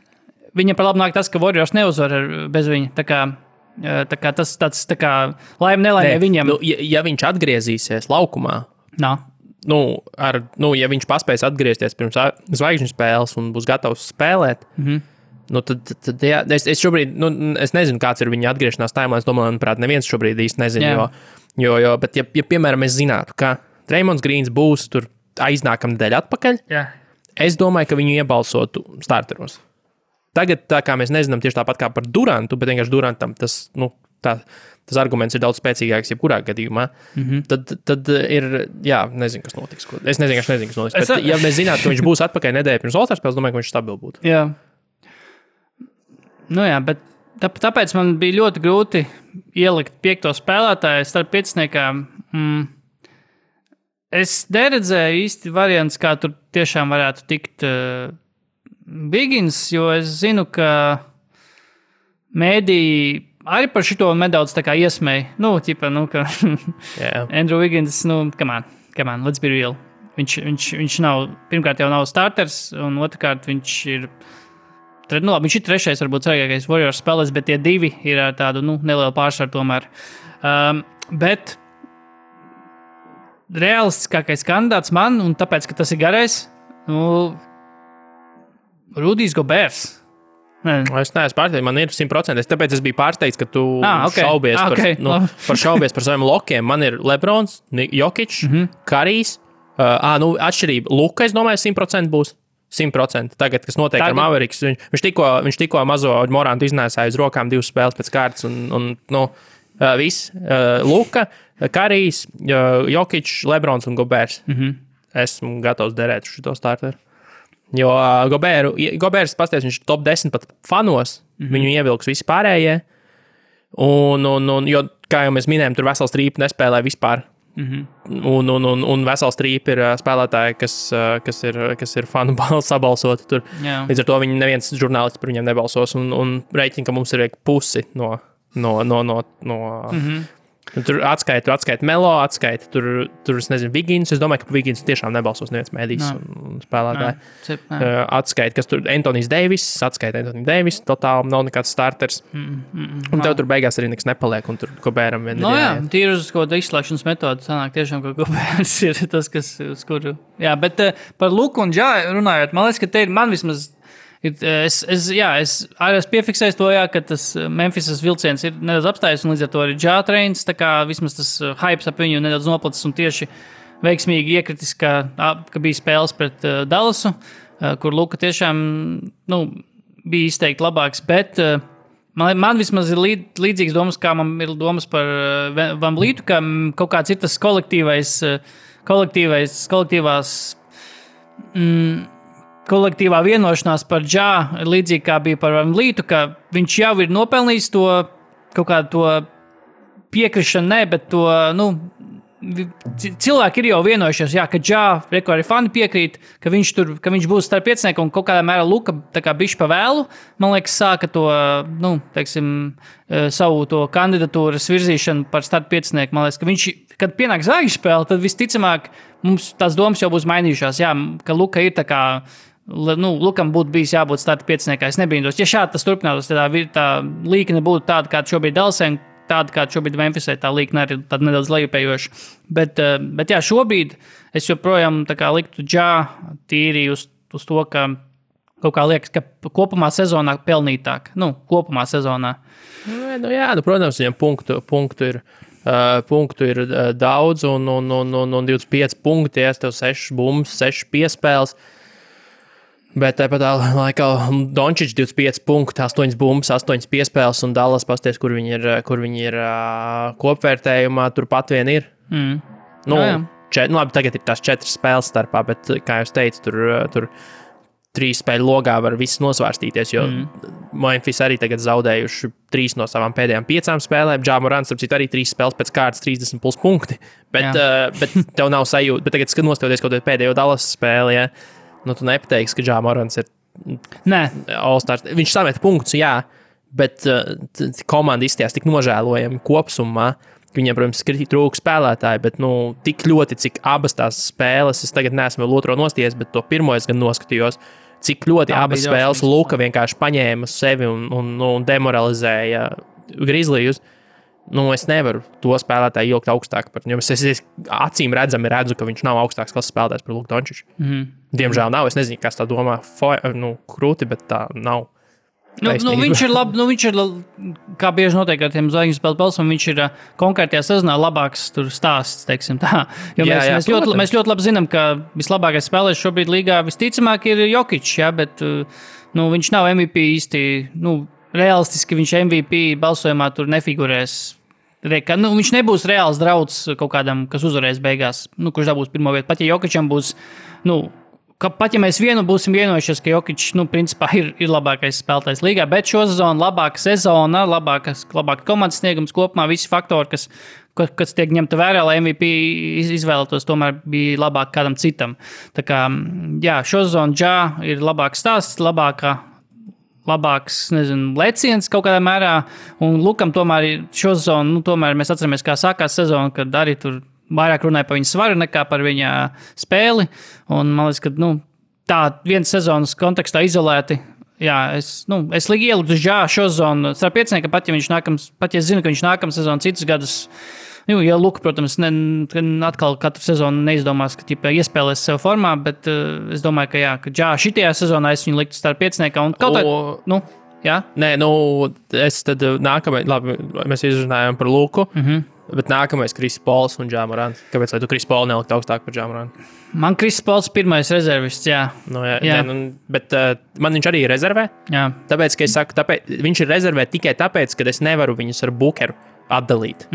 viņam par labu nāk tas, ka Warriors neuzvar bez viņa. Tā kā tas tāds laime nelaime viņam. Ja viņš atgriezīsies laukumā, ja viņš paspēs atgriezties pirms zvaigžņu spēles un būs gatavs spēlēt, tad es šobrīd, es nezinu, kāds ir viņa atgriešanās timelines, domāju, manuprāt, neviens šobrīd īsti nezinu, bet ja piemēram mēs zinātu, ka Draymonds Greens būs tur aiznākam nedēļa atpakaļ, es domāju, ka viņu iebalsotu starteros. Tagad, tā kā mēs nezinām tieši tāpat kā par Durantu, bet vienkārši Durantam tas arguments ir daudz spēcīgāks jebkurā gadījumā, tad ir, nezinu, kas notiks. Es nezinu, kas notiks, bet ja mēs zinātu, ka viņš būs atpakaļ nedēļa pirms All-Star spēles, domāju, ka viņš stabil būtu. Bet tāpēc man bija ļoti grūti ielikt 5. spēlētāju starp pieciniekām. Es neredzēju īsti variants, kā tur tiešām varētu tikt Wiggins, jo es zinu, ka mēdī arī par šito nedaudz tā kā iesmēja. Ka Andrew Wiggins, come on, let's be real. Viņš nav, pirmkārt jau nav starters, un otrkārt viņš ir viņš ir 3. varbūt svarīgākais Warriors spēlēs, bet tie 2 ir ar tādu nelielu pārsvaru tomēr. Bet realistiskākais kandidāts man, un tāpēc, ka tas ir garais, Rudijs Goberts. Es neesmu pārsteigts, man ir 100%. Tāpēc es biju pārsteigts, ka tu šaubies par saviem lokiem. Man ir Lebrons, Jokic, Karijs. Atšķirība. Luka, es domāju, 100% būs. 100%. Tagad, kas notiek ar Mavericks, viņš tikko mazo Morantu iznēsāja uz rokām 2 spēles pēc kārtas un viss. Luka, Karijs, Jokic, Lebrons un Gobers. Esmu gatavs derēt uz šo starteru. Jo Gobers, pasties, viņš ir top 10 pat fanos, viņu ievilks visi pārējie. Jo, kā jau mēs minējām, tur vesels trīpa nespēlē vispār. Un vesels trīpa ir spēlētāji, kas ir fanu sabalsoti tur. Līdz ar to neviens žurnālists par viņiem nebalsos un reiķina, ka mums ir pusi no tur atskaita Melo, tur es nezinu, Vigins. Es domāju, ka Vigins tiešām nebalsos neviens mēdījis un spēlētāji. Atskaita, kas tur Anthony Davis, totāli nav nekāds starters. Un tev tur beigās arī nekas nepaliek, un tur Gobēram vien tīri uz kaut kādu izslēgšanas metodu sanāk tiešām, ka Gobērs ir tas, kas uz kuru. Jā, bet par Luku un Džā runājot, man liekas, ka te ir man vismaz Es arī piefiksēju to, ka tas Memphisas vilciens ir nedaudz apstājies, un līdz ar to arī Džā treins, tā kā vismaz tas hypes ap viņu nedaudz noplacis un tieši veiksmīgi iekritis, ka bija spēles pret Dallasu, kur Luka tiešām bija izteikti labāks, bet man vismaz ir līdzīgas domas, kā man ir domas par Van Vlītu, ka kaut kāds ir tas kolektīvā vienošanās par Džā, līdzīgi kā bija par Van Vlītu, ka viņš jau ir nopelnījis to kaut kādu to piekrišanu, bet to, cilvēki ir jau vienojušies, ka Džā, arī fani piekrīt, ka viņš būs starp piecinieku un kaut kādā mērā Luka tā kā bišķi pa vēlu, man liekas, sāka to, savu to kandidatūras virzīšanu par starp piecinieku. Man liekas, ka viņš, kad pienāk zvaigžņu spēle, tad visticamāk mums tās domas jau būs mainījušās, ka Luka ir tā kā, Lukam būtu bijis jābūt starta pieciniekā. Es nebrīnos. Ja šādi tas turpinātos, tad tā līkne būtu tāda, kāda šobrīd Dallasē, tāda, kāda šobrīd Memphisē, tā līkne arī tāda nedaudz lejupējoša. Bet jā, šobrīd es joprojām tā kā liktu Džā tīri uz to, ka kaut kā liekas, ka kopumā sezonā pelnītāk. Kopumā sezonā. Protams, viņam punktu ir daudz un 25 punkti, tev 6 bumbas, 6 piespēles. Bet tāpat laikā Dončičs 25 punkti, 8 bumbas, 8 piespēles un Dallas pasties, kur viņi ir kopvērtējumā, turpat vien ir. Labi, tagad ir tās 4 spēles starpā, bet, kā jau teicu, tur 3 spēļu logā var viss nosvērstīties, jo Memphis arī tagad zaudējuši 3 no savām pēdējām 5 spēlēm. Ja Morants, arī 3 spēles pēc kārtas 30 plus punkti, bet tev nav sajūta. Bet tagad, kad nostoties kaut kādu pēdējo Dallas spēli, tu nepateiksi, ka Ja Morants ir All-Stars. Viņš samet punktus, bet komanda izstījās tik nožēlojami kopsumā. Viņiem, protams, trūka spēlētāji, bet tik ļoti, cik abas tās spēles, es tagad neesmu vēl otro nosties, bet to pirmo es gan noskatījos, cik ļoti abas spēles Luka vienkārši paņēma sevi un demoralizēja Grizzlies. Es nevaru to spēlētāju ilgt augstāk par viņu. Es acīm redzami redzu, ka viņš nav augstāks klases spēlētājs par Luku Dončiču. Diemžēl nav. Es nezinu, kas tā domā krūti, bet tā nav. Viņš ir labi, viņš ir, kā bieži notiek ar tiem zvaigžņu spēļu balsam, viņš ir konkrētajā sezonā labāks stāsts, teiksim tā. Jo mēs ļoti labi zinām, ka vislabākais spēlētājs šobrīd līgā visticamāk ir Jokic, bet viņš nav MVP īsti, realistiski viņš MVP balsojumā tur nefigurēs. Viņš nebūs reāls drauds kaut kādam, kas uzvarēs beigās, kurš dabūs pirmo vietu. Pat ja Jokičam būs, pat ja mēs būsim vienojušies, ka Jokič, principā ir labākais spēlētājs līgā, bet šo sezonu labāka sezona, labāka komandas sniegums kopumā, visi faktori, kas tiek ņemta vērā, lai MVP izvēlētos, tomēr bija labāk kādam citam. Tā kā, šo sezonu Ja ir labāks stāsts, labāks, leciens kaut kādā mērā, un Lukam tomēr šo sezonu, tomēr mēs atceramies, kā sākās sezona, kad arī tur vairāk runāja par viņa svaru nekā par viņa spēli, un man liekas, ka, tā viens sezonas kontekstā izolēti, es ieliku uz Ja šo sezonu starp piecinieku, pat ja zinu, ka viņš nākamā sezonu citus gadus, ja Luka, protams, atkal katru sezonu neizdomās, ka iespēlēs sev formā, bet es domāju, ka Ja šitajā sezonā es viņu liktu starp pieciniekā un kaut kā, Nē, es tad nākamajā, labi, mēs izrunājām par Luku. Bet nākamais Kris Pols un Ja Morants. Kāpēc tu Kris Polu nelikt augstāk par Ja Morantu? Man Kris Pols pirmais rezervists, jā. Nu, jā. Bet man viņš arī ir rezervē. Jā. Tāpēc, ka es saku, viņš ir rezervē tikai tāpēc, ka es nevaru viņus ar Bookeru atdalīt.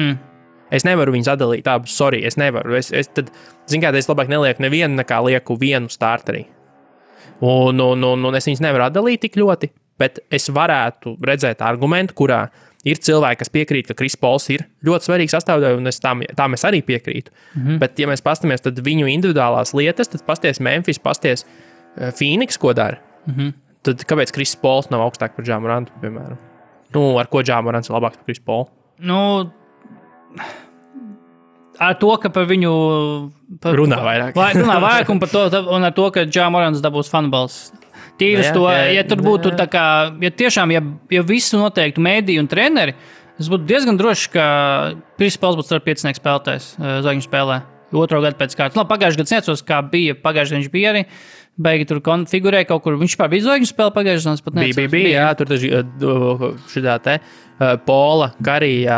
Es nevaru viņus atdalīt abus, sorry, es nevaru. Tad, es labāk nelieku nevienu, nekā lieku vienu starterī. Un es viņus nevaru atdalīt tik ļoti, bet es varētu redzēt argumentu, kurā ir cilvēki, kas piekrīt, ka Kris Pols ir ļoti svarīgs sastāvdaļa, un tam es arī piekrītu. Bet, ja mēs pastamies tad viņu individuālās lietas, tad pasties Memphis, pasties Phoenix, ko dara. Tad kāpēc Kris Pols nav augstāk par Ja Morantu, piemēram? Ar ko Ja Morants ir labāks par Kris Polu? Ar to, ka par viņu runā vairāk. Runā vairāk un par to, un ar to, ka Ja Morants dabūs fanballs. Tīras to, ja tur būtu tā kā, ja tiešām, ja visu noteiktu mēdī un treneri, es būtu diezgan drošs, ka Kris Pols būtu starp 5 spēlētājs zvaigžņu spēlē. Otro gadu pēc kārtas. Pagājušajā gadā necos, kā bija. Pagājušajā viņš bija arī. Beigi tur konfigurēja kaut kur. Viņš pār bija zvaigžņu spēle pagājušajā gadā. Pat necos. Bija, jā. Tur šitā te Pola, Karija,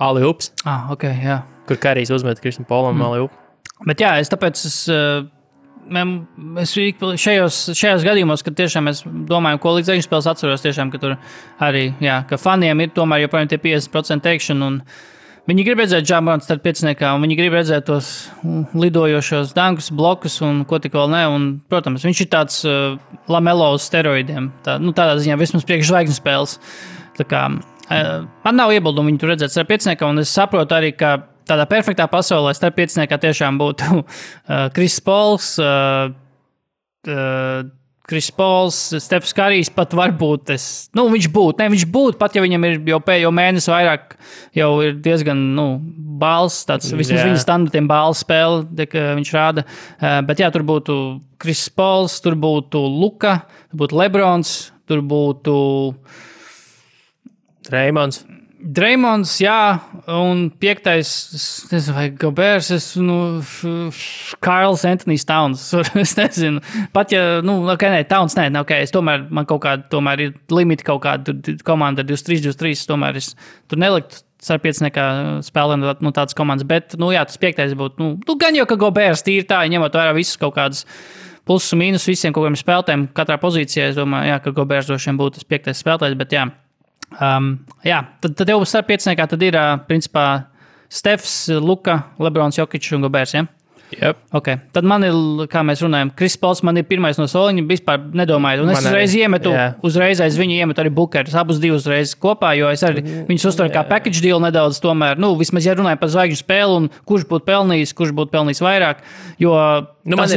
Ali-Ups. Ok, jā. Kur Karijs uzmet Kristam Polam Ali-Up. Bet jā, es šajos gadījumos, kad tiešām mēs domājam, ko līdz zvaigžņu spēles atceros, tiešām, ka tur arī, jā, ka faniem ir tomēr joprojām tie 50% teikšana un viņi grib redzēt Ja Morantu starp 5, un viņi grib redzēt tos lidojošos dankus, blokus un ko tik vēl ne. Un, protams, viņš ir tāds Lamelo uz steroidiem. Tādā ziņā vismaz priekš zvaigžņu spēles. Tā kā, man nav iebildumu viņu tur redzēt starp 5, un es saprotu arī, ka tādā perfektā pasaulē starp 5 tiešām būtu Kris Pols, Stefs Karijs pat varbūt viņš būtu, pat ja viņam ir jau mēnesi vairāk, jau ir diezgan, bāls, tāds vismaz viņa standartiem bāls spēle, viņš rāda. Bet jā, tur būtu Kris Pols, tur būtu Luka, tur būtu Lebrons, tur būtu Draymonds, jā, un 5. es nezinu, vai Gobers, Karls Anthony Towns, es nezinu. Pat ja, Towns, es tomēr, man kaut kāda, tomēr ir limiti kaut kāda, komanda 23, tomēr es tur neliktu ar 5 spēlēm tādas komandas, bet, jā, tas 5. būtu, gan jau, ka Gobers tīri tā, ņemot vērā visus kaut kādas plusus un mīnus visiem kaut kādiem spēlētājiem, katrā pozīcijā, es domāju, jā, ka Gobers droši vien būtu tas 5. spēlētājs, bet jā. Tad jau starp 5 tad ir, principā, Stefs, Luka, Lebrons, Jokic un Gobers, ja? Yep. Okay. Tad man ir, kā mēs runājam, Kris Pols man ir pirmais no soliņa, vispār nedomāju. Un es uzreiz aiz viņu iemetu arī Bookerus, abus divus reiz kopā, jo es arī viņus uztveru kā package deal nedaudz tomēr. Vismaz, ja runāju par zvaigžņu spēli un kurš būtu pelnījis vairāk, jo...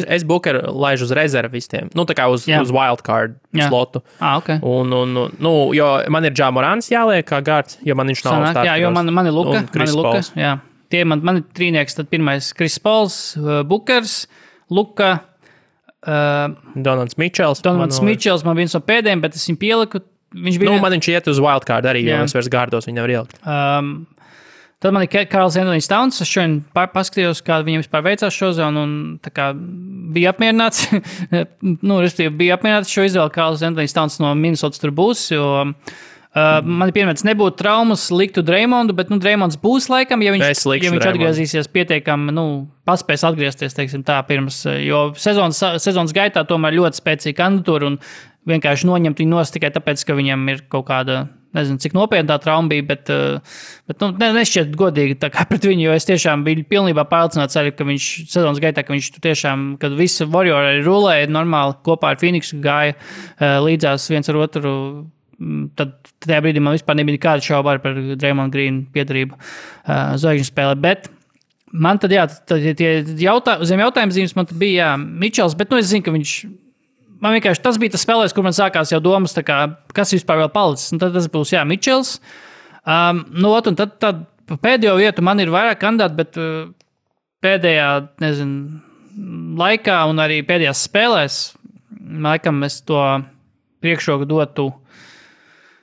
Es Bookeru laižu uz rezervistiem, tā kā uz wildcard slotu. Okay. Jo man ir Ja Morants jāliek kā gārds, jo man viņš nav starters. Jā, jo man ir Luka, jā. Tie man ir trīnieks, tad pirmais Kris Pols, Bookers, Luka, Donalds Mičels. Mičels man viens no pēdējiem, bet es viņu pieliku. Man viņš iet uz wildcard arī, jo es vairs gārdos viņu nevar ielikt. Tad man ir Karls Anthony Towns. Es šodien paskatījos, kā viņam vispār veicās šo zonu, un tā kā bija apmierināts. Bija apmierināts šo izvēli. Karls Anthony Towns no Minnesotas tur būs, jo... man ir piemērs, nebūtu traumas, liktu Draymondu, bet Draymonds būs laikam, ja viņš atgriezīsies pietiekami, paspēs atgriezties, teiksim tā, pirms, jo sezonas gaitā tomēr ļoti spēcīga kandidatūra un vienkārši noņemt viņu nost tikai tāpēc, ka viņam ir kaut kāda, nezinu, cik nopietnā trauma bija, bet nešķiet godīgi tā kā pret viņu, jo es tiešām biju pilnībā pārliecināts arī, ka viņš sezonas gaitā, ka viņš tiešām, kad visi Warrior arī rulēja normāli, kopā ar Phoenixu gāja līdzās viens ar otru. Tad tajā brīdī man vispār nebija nekāda šauba par Draymond Green piedarību zvaigžņu spēlē, bet man tad, tie zem jautājuma zīmes man tad bija, Mičels, bet, es zinu, ka viņš, man vienkārši tas bija tas spēlēs, kur man sākās jau domas, tā kā, kas vispār vēl palicis, un tad tas būs, Mičels, un tad pēdējo vietu man ir vairāk kandidāti, bet pēdējā, laikā un arī pēdējās spēlēs, laikam es to priekšroku dotu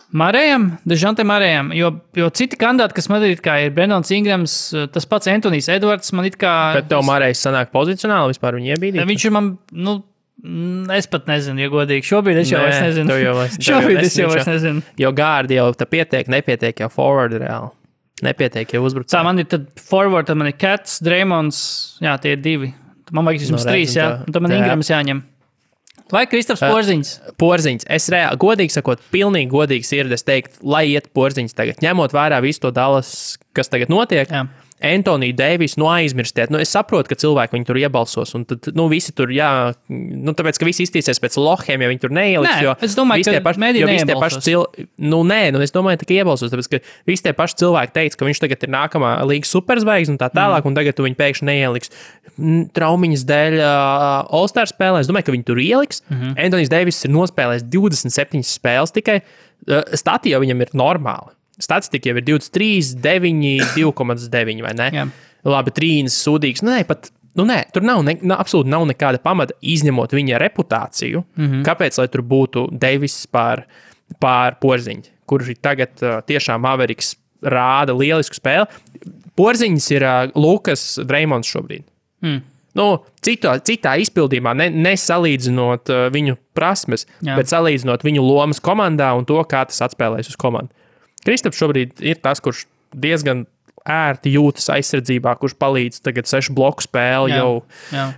Dejante Marējam, jo citi kandidāti, kas man ir Brendons Ingrams, tas pats Antonijs Edvards, man it kā... Bet tev Marējs sanāk pozicionāli vispār viņu iebīdīt? Viņš ir man, es pat nezinu, ja godīgi. Šobrīd es jau vairs nezinu. Šobrīd es jau vairs nezinu. Jo gārdi jau tā nepietiek jau forward reāli. Nepietiek, ja uzbrucēji. Tā man ir tad forward, tad man ir Cats, Draymonds, jā, tie ir 2. Man vajag vismaz 3, jā. Un tad man Ingrams jāņem. Vai Kristaps Porziņš? Porziņš. Es reāli, godīgi sakot, pilnīgi godīgi sirdi, es teiktu, lai iet Porziņš tagad. Ņemot vērā visu to Dallas, kas tagad notiek. Jā. Antoniju Deivisu, aizmirstiet. Es saprotu, ka cilvēki viņu tur iebalsos, un tad, visi tur, tāpēc, ka visi iztīsies pēc lohiem, ja viņi tur neieliks, jo es domāju, ka mediji neiebalsos. Es domāju, ka iebalsos, tāpēc, ka visi tie paši cilvēki teica, ka viņš tagad ir nākamā līgas superzvaigznes un tā tālāk, un tagad tu viņu pēkšņi neieliks traumiņas dēļ All-Star spēlē. Es domāju, ka viņi tur ieliks. Antonijs Deivis ir nospēlējis 27 spēles tikai. Stati jau viņam ir normāli. Statistika jau ir 23, 9, 2,9 vai ne? Jā. Labi, trīnis sūdīgs. Tur absolūti nav nekāda pamata izņemot viņa reputāciju. Kāpēc, lai tur būtu Deivis pār Porziņu, kurš tagad tiešām Mavericks rāda lielisku spēli. Porziņš ir Lukas Draymonds šobrīd. Citā izpildījumā, nesalīdzinot viņu prasmes, bet salīdzinot viņu lomas komandā un to, kā tas atspēlēs uz komandu. Kristaps šobrīd ir tas, kurš diezgan ērti jūtas aizsardzībā, kurš palīdz tagad 6 bloku spēli, jau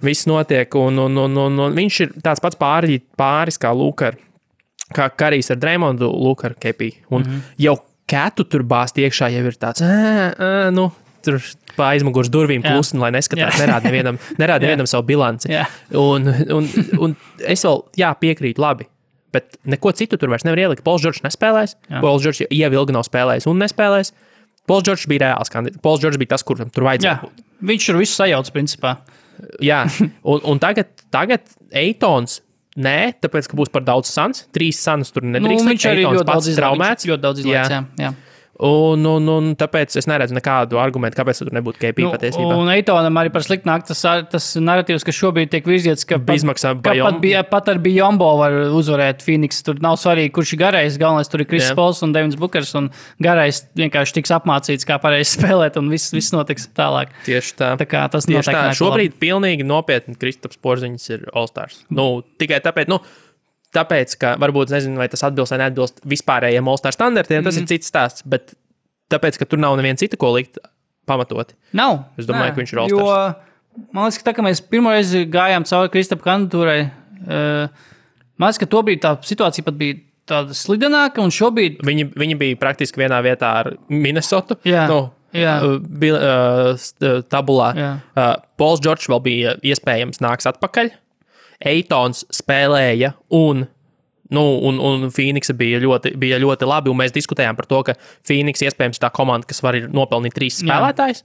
viss notiek, un viņš ir tāds pats pāris kā Lukar, kā Karijs ar Draymondu, Lukar Kepī, un jau Ketu tur bāzt iekšā jau ir tāds, tur pa aizmugurs durvīm klusni, lai neskatās, nerāda nevienam savu bilanci, un es vēl, piekrītu labi. Bet neko citu tur vairs nevar ielikt. Pols Džordžs nespēlēs. Pols Džordžs jau ilgi nav spēlējis un nespēlēs. Pols Džordžs bija reāls kandidāts. Pols Džordžs bija tas, kuram tur vajadzēja būt. Viņš tur visu sajauc, principā. Jā, un tagad Eitons, tāpēc, ka būs par daudz sans. 3 sans tur nedrīkst. Viņš arī ļoti daudz izlaiks, jā. Un tāpēc es neredzu nekādu argumentu, kāpēc tur nebūtu KP patiesībā. Un Eitonam arī par sliktu nāk tas narratīvs, ka šobrīd tiek virzīts, ka pat ar Biyombo var uzvarēt Phoenix. Tur nav svarīgi, kurš ir garais. Galvenais tur ir Chris Pauls un Devins Bookers, un garais vienkārši tiks apmācīts, kā pareizi spēlēt, un viss notiks tālāk. Tieši tā. Tā kā tas notiek. Šobrīd pilnīgi nopietni Kristaps Porziņš ir All-Stars. Tikai tāpēc, ka varbūt nezinu, vai tas atbilst vai neatbilst vispārējiem All-Star standartiem, tas ir cits stāsts, bet tāpēc, ka tur nav neviena cita, ko likt pamatoti. Nav. Es domāju, ka viņš ir All-Stars. Jo, man liekas, ka tā, ka mēs pirmoreiz gājām cauri Kristapa kandidatūrai, man liekas, ka to bija tā situācija pat bija tāda slidenāka, un šobrīd... Viņi bija praktiski vienā vietā ar Minnesotu. Jā. Tabulā. Pols Džordžs vēl bija iespējams nāks atpakaļ. Eitons spēlēja un Phoenixa bija ļoti labi, un mēs diskutējām par to, ka Phoenix iespējams tā komanda, kas var nopelnīt 3 spēlētājs,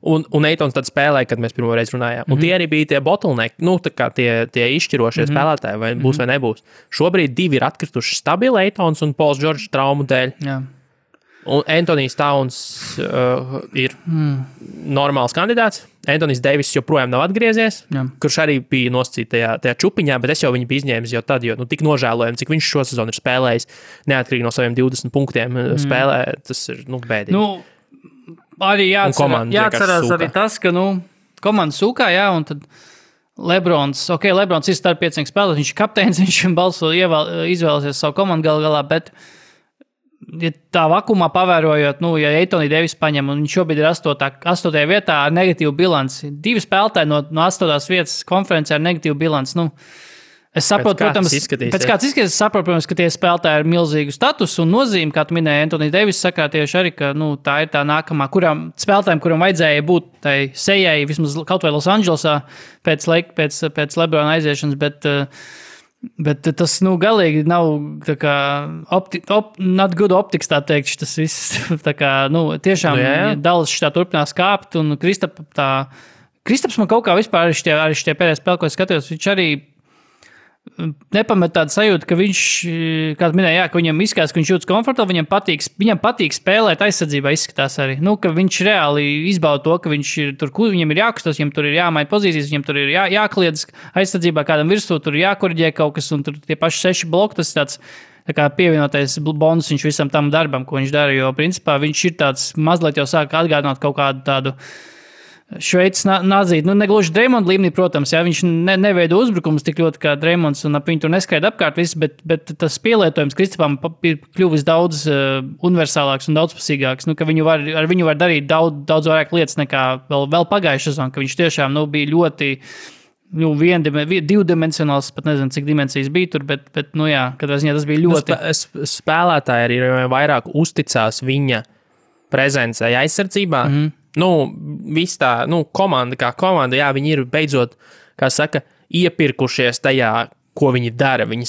un Eitons tad spēlēja, kad mēs pirmo reizi runājām. Un tie arī bija tie bottleneck, tā kā tie izšķirošie spēlētāji, vai būs vai nebūs. Šobrīd 2 ir atkrituši stabili Eitons un Pols Džordžs traumu dēļ. Jā. Un Antonijs Towns ir normāls kandidāts. Antonijs Deivis joprojām nav atgriezies, kurš arī bija nosacīts tajā čupiņā, bet es jau viņu biju izņēmis jau tad, jo tik nožēlojami, cik viņš šo sezonu ir spēlējis, neatkarīgi no saviem 20 punktiem spēlē, tas ir bēdīgi. Arī jāatcerās arī tas, ka komanda sūkā, un tad Lebrons ir starp 5 spēlētājiem, viņš ir kapteinis, viņš izvēlēsies savu komandu galā, bet ja tā vakumā pavērojot, ja Antoniju Deivis paņem, un viņš šobrīd ir 8. vietā ar negatīvu bilanci, 2 spēlētāji no 8. vietas konferencē ar negatīvu bilanci, es saprotu, protams, es saprotu, protams, ka tie spēlētāji ar milzīgu statusu un nozīmi, kā tu minēji, Antoniju Deivis sakā tieši arī, ka tā ir tā nākamā, spēlētājiem, kuram vajadzēja būt tai sejai, vismaz kaut vai Los Andželosā pēc Lebrona aiziešanas, bet tas, galīgi nav tā kā not good optics, tā teikt, tas viss, tā kā, tiešām Dallas šitā turpinās kāpt, un Kristaps man kaut kā vispār arī šitie pēdējā spēle, ko es skatījos, viņš arī nepamet tādu sajūtu, ka viņš, kā minēja, ka viņam izskatās, ka viņš jūtas komfortabli, viņam patīk spēlēt aizsardzībā, izskatās arī, ka viņš reāli izbauda to, ka viņš ir tur, viņam ir jākustas, viņam tur ir jāmaina pozīcijas, viņam tur ir jākliedz aizsardzībā kādam virsū, tur jākoriģē kaut kas, un tur tie paši 6 bloki, tas tāds tā kā pievienotais bonus viņš visam tam darbam, ko viņš dara, jo principā viņš ir tāds mazliet jau sāk atgādināt kaut kādu tādu Šveicis nādzīt, negluži Dreymonda līmenī, protams, jā, viņš neveido uzbrukumus tik ļoti kā Dreymonds un ap viņu tur neskaida apkārt viss, bet tas pielietojums Kristapam ir kļuvis daudz universālāks un daudzpusīgāks, ka ar viņu var darīt daudz vairāk lietas nekā vēl pagājušā sezonā, ka viņš tiešām bija ļoti divdimensionāls, pat nezinu, cik dimensijas bija tur, bet jā, katrā ziņā tas bija ļoti... Spēlētāji arī vairāk uzticās viņa prezencei aizsardzībā. Viss tā, komanda kā komanda, jā, viņi ir beidzot, kā saka, iepirkušies tajā, ko viņi dara. Viņi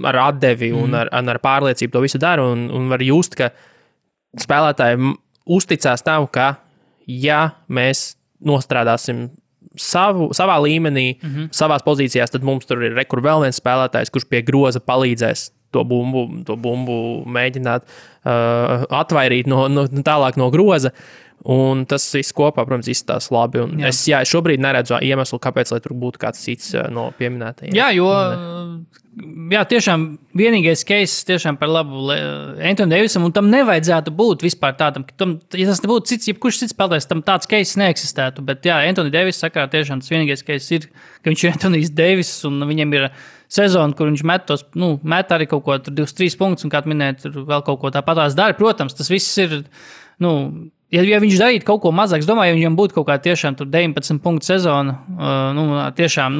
ar atdevi un ar pārliecību to visu dara un var just, ka spēlētāji uzticās tam, ka, ja mēs nostrādāsim savā līmenī, savās pozīcijās, tad mums tur ir vēl viens spēlētājs, kurš pie groza palīdzēs to bumbu mēģināt atvairīt tālāk no groza. Un tas viss kopā, protams, izskatās labi. Un es šobrīd neredzu iemeslu, kāpēc, lai tur būtu kāds cits no pieminētajiem. Jā, jo tiešām vienīgais case tiešām par labu Anthony Davisam, un tam nevajadzētu būt vispār tādam, ja tas nebūtu cits, jebkurš cits spēlētājs, tam tāds case neeksistētu. Bet jā, Anthony Davis sakarā tiešām tas vienīgais case ir, ka viņš ir Anthony's Davis, un viņam ir sezona, kur viņš met arī kaut ko 23 punktus, un kā minēt, tur vēl kaut ko tāpatās dara. Protams, tas viss ir, ja viņš darītu kaut ko mazāk, es domāju, ja viņam būtu kaut kā tiešām 19 punktu sezona, tiešām,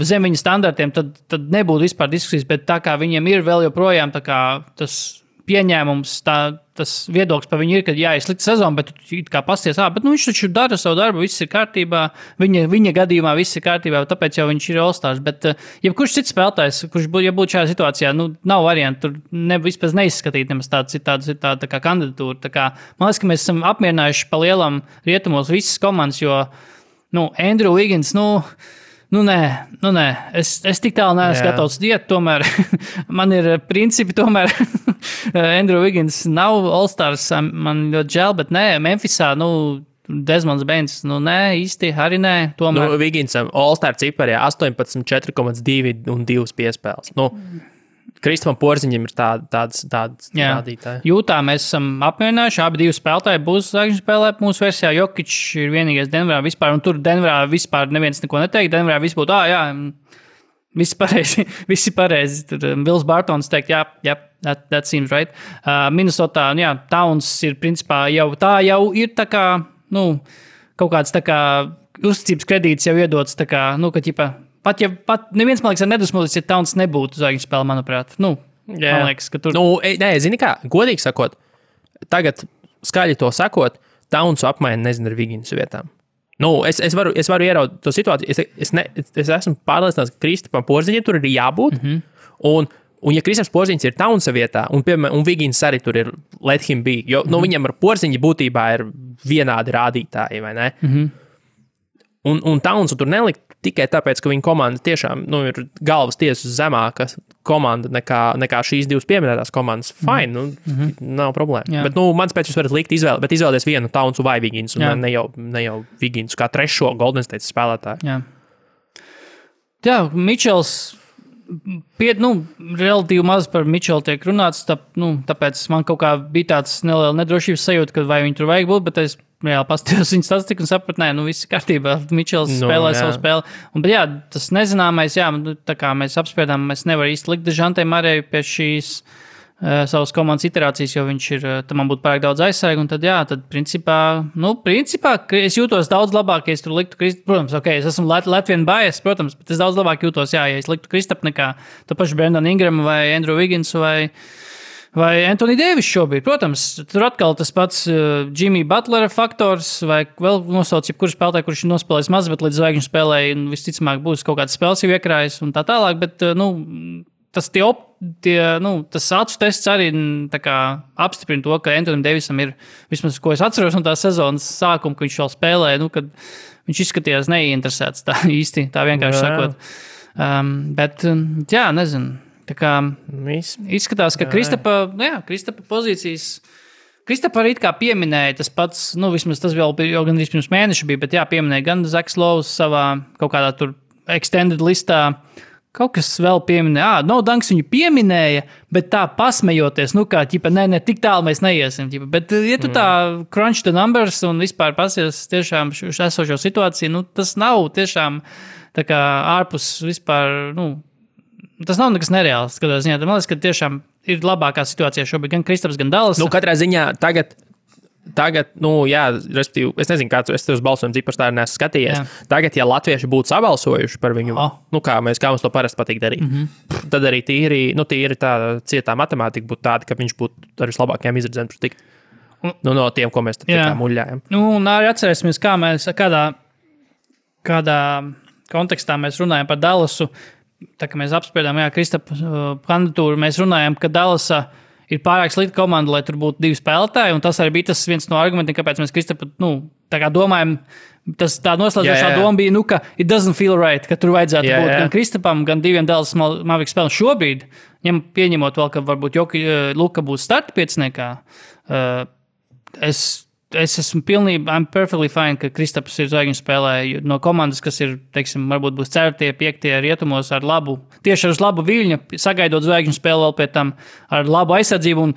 zem viņa standartiem, tad nebūtu vispār diskusijas, bet tā kā viņam ir vēl joprojām tā kā tas pieņēmums, tas viedoklis par viņu ir, ka ir slikta sezona, bet tu kā pasties, bet viņš taču dara savu darbu, viss ir kārtībā, viņa gadījumā viss ir kārtībā, tāpēc jau viņš ir All-Stars, bet jebkurš cits spēlētājs, kurš būtu šajā situācijā, nav variantu, tur vispār neizskatīt nemaz tāda kā kandidatūra, tā kā, man liekas, ka mēs esam apmierinājuši pa lielam rietumos visas komandas, jo, Andrew Wiggins, nē, es tik tālu neesmu gatavs iet, tomēr man ir principi, tomēr Andrew Wiggins nav All-Stars, man ļoti žēl, bet nē, Memphisā, Desmonds Bains, nē, īsti, arī nē, tomēr. Wigginsam All-Star ciparī 18, 4,2 un 2 piespēles. Kristapam Porziņam ir tāds rādītāji. Jūtā mēs esam apmierinājuši, abi divi spēlētāji būs zvaigžņu spēlē mūsu versijā. Jokic ir vienīgais Denverā vispār, un tur Denverā vispār neviens neko neteikt. Denverā viss būtu, visi pareizi. Tur Bills Bartons teikt, that seems right. Minnesotā, Towns ir principā jau ir tā kā, kaut kāds tā kā uzticības kredīts jau iedots, tā kā, ka Pat neviens, man liekas, ar nedusmoties, ja Towns nebūtu zvaigžņu spēle, manuprāt. Man liekas, ka tur... Nē, zini kā, godīgi sakot, tagad skaļi to sakot, Townsu apmaina, nezinu, ar Wigginsu vietām. Es varu ieraudīt to situāciju. Es esmu pārliecināts, ka Kristapam Porziņam tur ir jābūt. Un ja Kristaps Porziņš ir Townsa vietā, un Wiggins arī tur ir let him be, jo viņam ar Porziņu būtībā ir vienādi rādītāji, vai ne? Un Townsu tur nelikt tikai tāpēc, ka viņa komanda tiešām ir galvas tiesas zemāka komanda nekā šīs divas pieminētās komandas. Fine, nav problēma. Jā. Bet mans pēc jūs varat likt izvēle, bet izvēlēties vienu Townsu vai Wigginsu, un ne jau Wigginsu kā trešo Golden State spēlētāju. Jā, Mičels, relatīvi maz par Mičelu tiek runāts, tāpēc man kaut kā bija tāds neliela nedrošības sajūta, ka vai viņi tur vajag būt, bet es reāli pastījos viņa statistiku un sapratu, viss ir kārtībā, Mičels spēlē savu spēli. Bet tas nezināmais, tā kā mēs apspriedām, mēs nevaram īsti likt Dežantei Marēju pie šīs savas komandas iterācijas, jo viņš ir, tam man būtu pārāk daudz aizsargu, un tad principā, es jūtos daudz labāk, ja es tur liktu protams, es esmu Latvian bias, protams, bet es daudz labāk jūtos, ja es liktu Kristapu nekā to pašu Brandon Ingramu vai Andrew Wigginsu vai Anthony Davis šobrīd. Protams, tur atkal tas pats Jimmy Butlera faktors, vai vēl nosauc jebkuru spēlētāju, kurš ir nospēlējis maz, bet līdz zvaigžņu spēlēji, visticamāk būs kaut kāds spēles jau iekrājis un tā tālāk, bet, tas acu tests arī tā kā apstiprina to, ka Anthony Davisam ir, vismaz, ko es atceros no tās sezonas sākuma, ka viņš vēl spēlēja, kad viņš izskatījās neinteresēts tā īsti, tā vienkārši sakot. Bet, nezinu. Tā kā izskatās, ka Kristapa pozīcijas, Kristapa arī kā pieminēja tas pats, vismaz tas vēl jau gandrīz pirms mēneša bija, bet pieminēja gan Zaks Lows savā kaut kādā tur extended listā, kaut kas vēl pieminēja, no Dunks viņu pieminēja, bet tā pasmejoties, kā, ķipa, ne, tik tālu mēs neiesim, ķipa, bet, ja tu tā crunch the numbers un vispār pasies tiešām esošo situāciju, tas nav tiešām tā kā ārpus vispār, tas nav nekas nereāls, skatās ziņā, man liekas, ka tiešām ir labākā situācija šobrīd, gan Kristaps, gan Dallas. Katrā ziņā tagad, jā, respektīvi, es nezinu, kāds es tev uz balsojumu cipars tā neesmu skatījies. Jā. Tagad, ja latvieši būtu sabalsojuši par viņu, kā mums to parasti patīk darīt, tad arī tīri tā cietā matemātika būtu tāda, ka viņš būtu ar vislabākajām izredzēm tikt. No tiem, ko mēs tā muļļājam. Un arī atcerēsimies, kādā kontekstā mēs runājam par Dallasu. Tā kā mēs apspriedām, Kristapa kandidatūru, mēs runājam, ka Dallasa ir pārāk slikta komanda, lai tur būtu 2 spēlētāji, un tas arī bija tas viens no argumentiem, kāpēc mēs Kristapu, tā kā domājam, tā noslēdzošā doma bija, ka it doesn't feel right, ka tur vajadzētu būt gan Kristapam, gan 2 Dallas Mavericks spēlēm šobrīd, pieņemot vēl, ka varbūt Luka būs starta pieciniekā, es esmu pilnībā, I'm perfectly fine, ka Kristaps ir zvaigžņu spēlē no komandas, kas ir, teiksim, varbūt būs 4., 5. rietumos ar labu, tieši ar labu viļņu, sagaidot zvaigžņu spēli vēl pēc tam ar labu aizsardzību. Un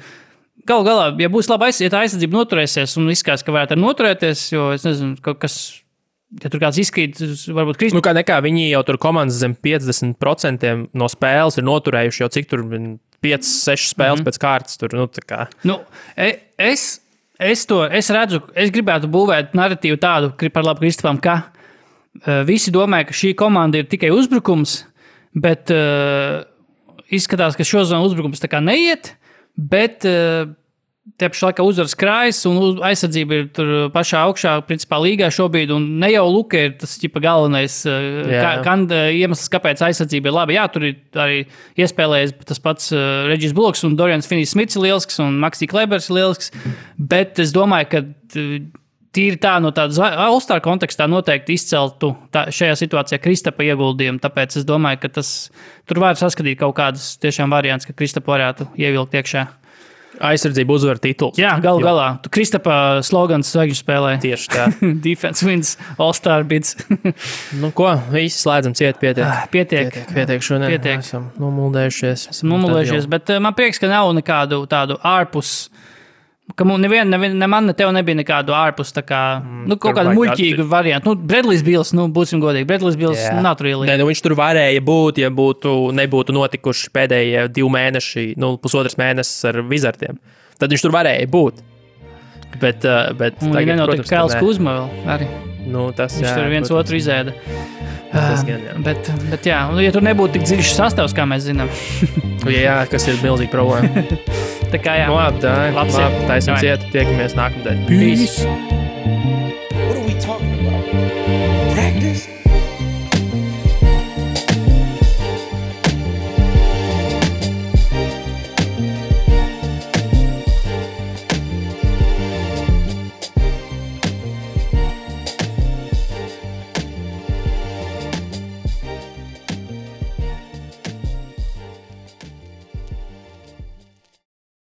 galu galā, ja būs laba aizsardzība, ja tā aizsardzība noturēsies un izskatās, ka varētu noturēties, jo es nezinu, kaut kas, ja tur kāds izkrīt, varbūt Kristaps. Kā viņi jau tur komandas zem 50% no spēles ir noturējuši jau cik tur 5-6 spēles pēc kārtas. Tur, tā kā. Es redzu, es gribētu būvēt narratīvu tādu par labu Kristapam, ka visi domāja, ka šī komanda ir tikai uzbrukums, bet izskatās, ka šo zonu uzbrukums tā kā neiet, bet te pašā laikā uzvaras krājas un aizsardzība ir tur pašā augšā, principā līgā šobrīd, un ne jau Luka ir tas galvenais iemesls, kāpēc aizsardzība ir laba. Jā, tur ir arī iespēlējies tas pats Regis Bullocks un Dorians Finney-Smiths ir lielisks un Maxi Klebers ir lielisks, bet es domāju, ka tīri tā no tādas All-Star kontekstā noteikti izceltu šajā situācijā Kristapa ieguldījumu, tāpēc es domāju, ka tur var saskatīt kaut kādas tiešām variants, ka Kristapu varētu ievilkt iekšā. Aizsardzība uzvar tituls. Jā, galu galā. Kristapa slogans zvaigžņu spēlē. Tieši tā. Defense wins, All-Star bids. Ko? Visi slēdzam ciet, pietiek šodien. Pietiek. Esam nomuldējušies. Bet man prieks, ka nav nekādu tādu ārpus, ka man ne tev nebija nekādu ārpus, tā kā, kaut kādu muļķīgu variantu. Bradley's Bills, būsim godīgi, Bradley's Bills nav tur ielīgi. Viņš tur varēja būt, ja nebūtu notikuši pēdējie 2 mēneši, 1,5 mēnesis ar Wizardiem. Tad viņš tur varēja būt. Bet tagad, nenotika Kēls Kuzma vēl arī. Tas, viņš tur viens otru izēda. Tas gan, jā. Bet jā, ja tur nebūtu tik dziļš sastāvs, kā mēs zinām. Jā, kas ir milzīga problēma. Tā kā jā. Labi, taisim ciet, tiekamies nākamdien. Peace. What are we talking about?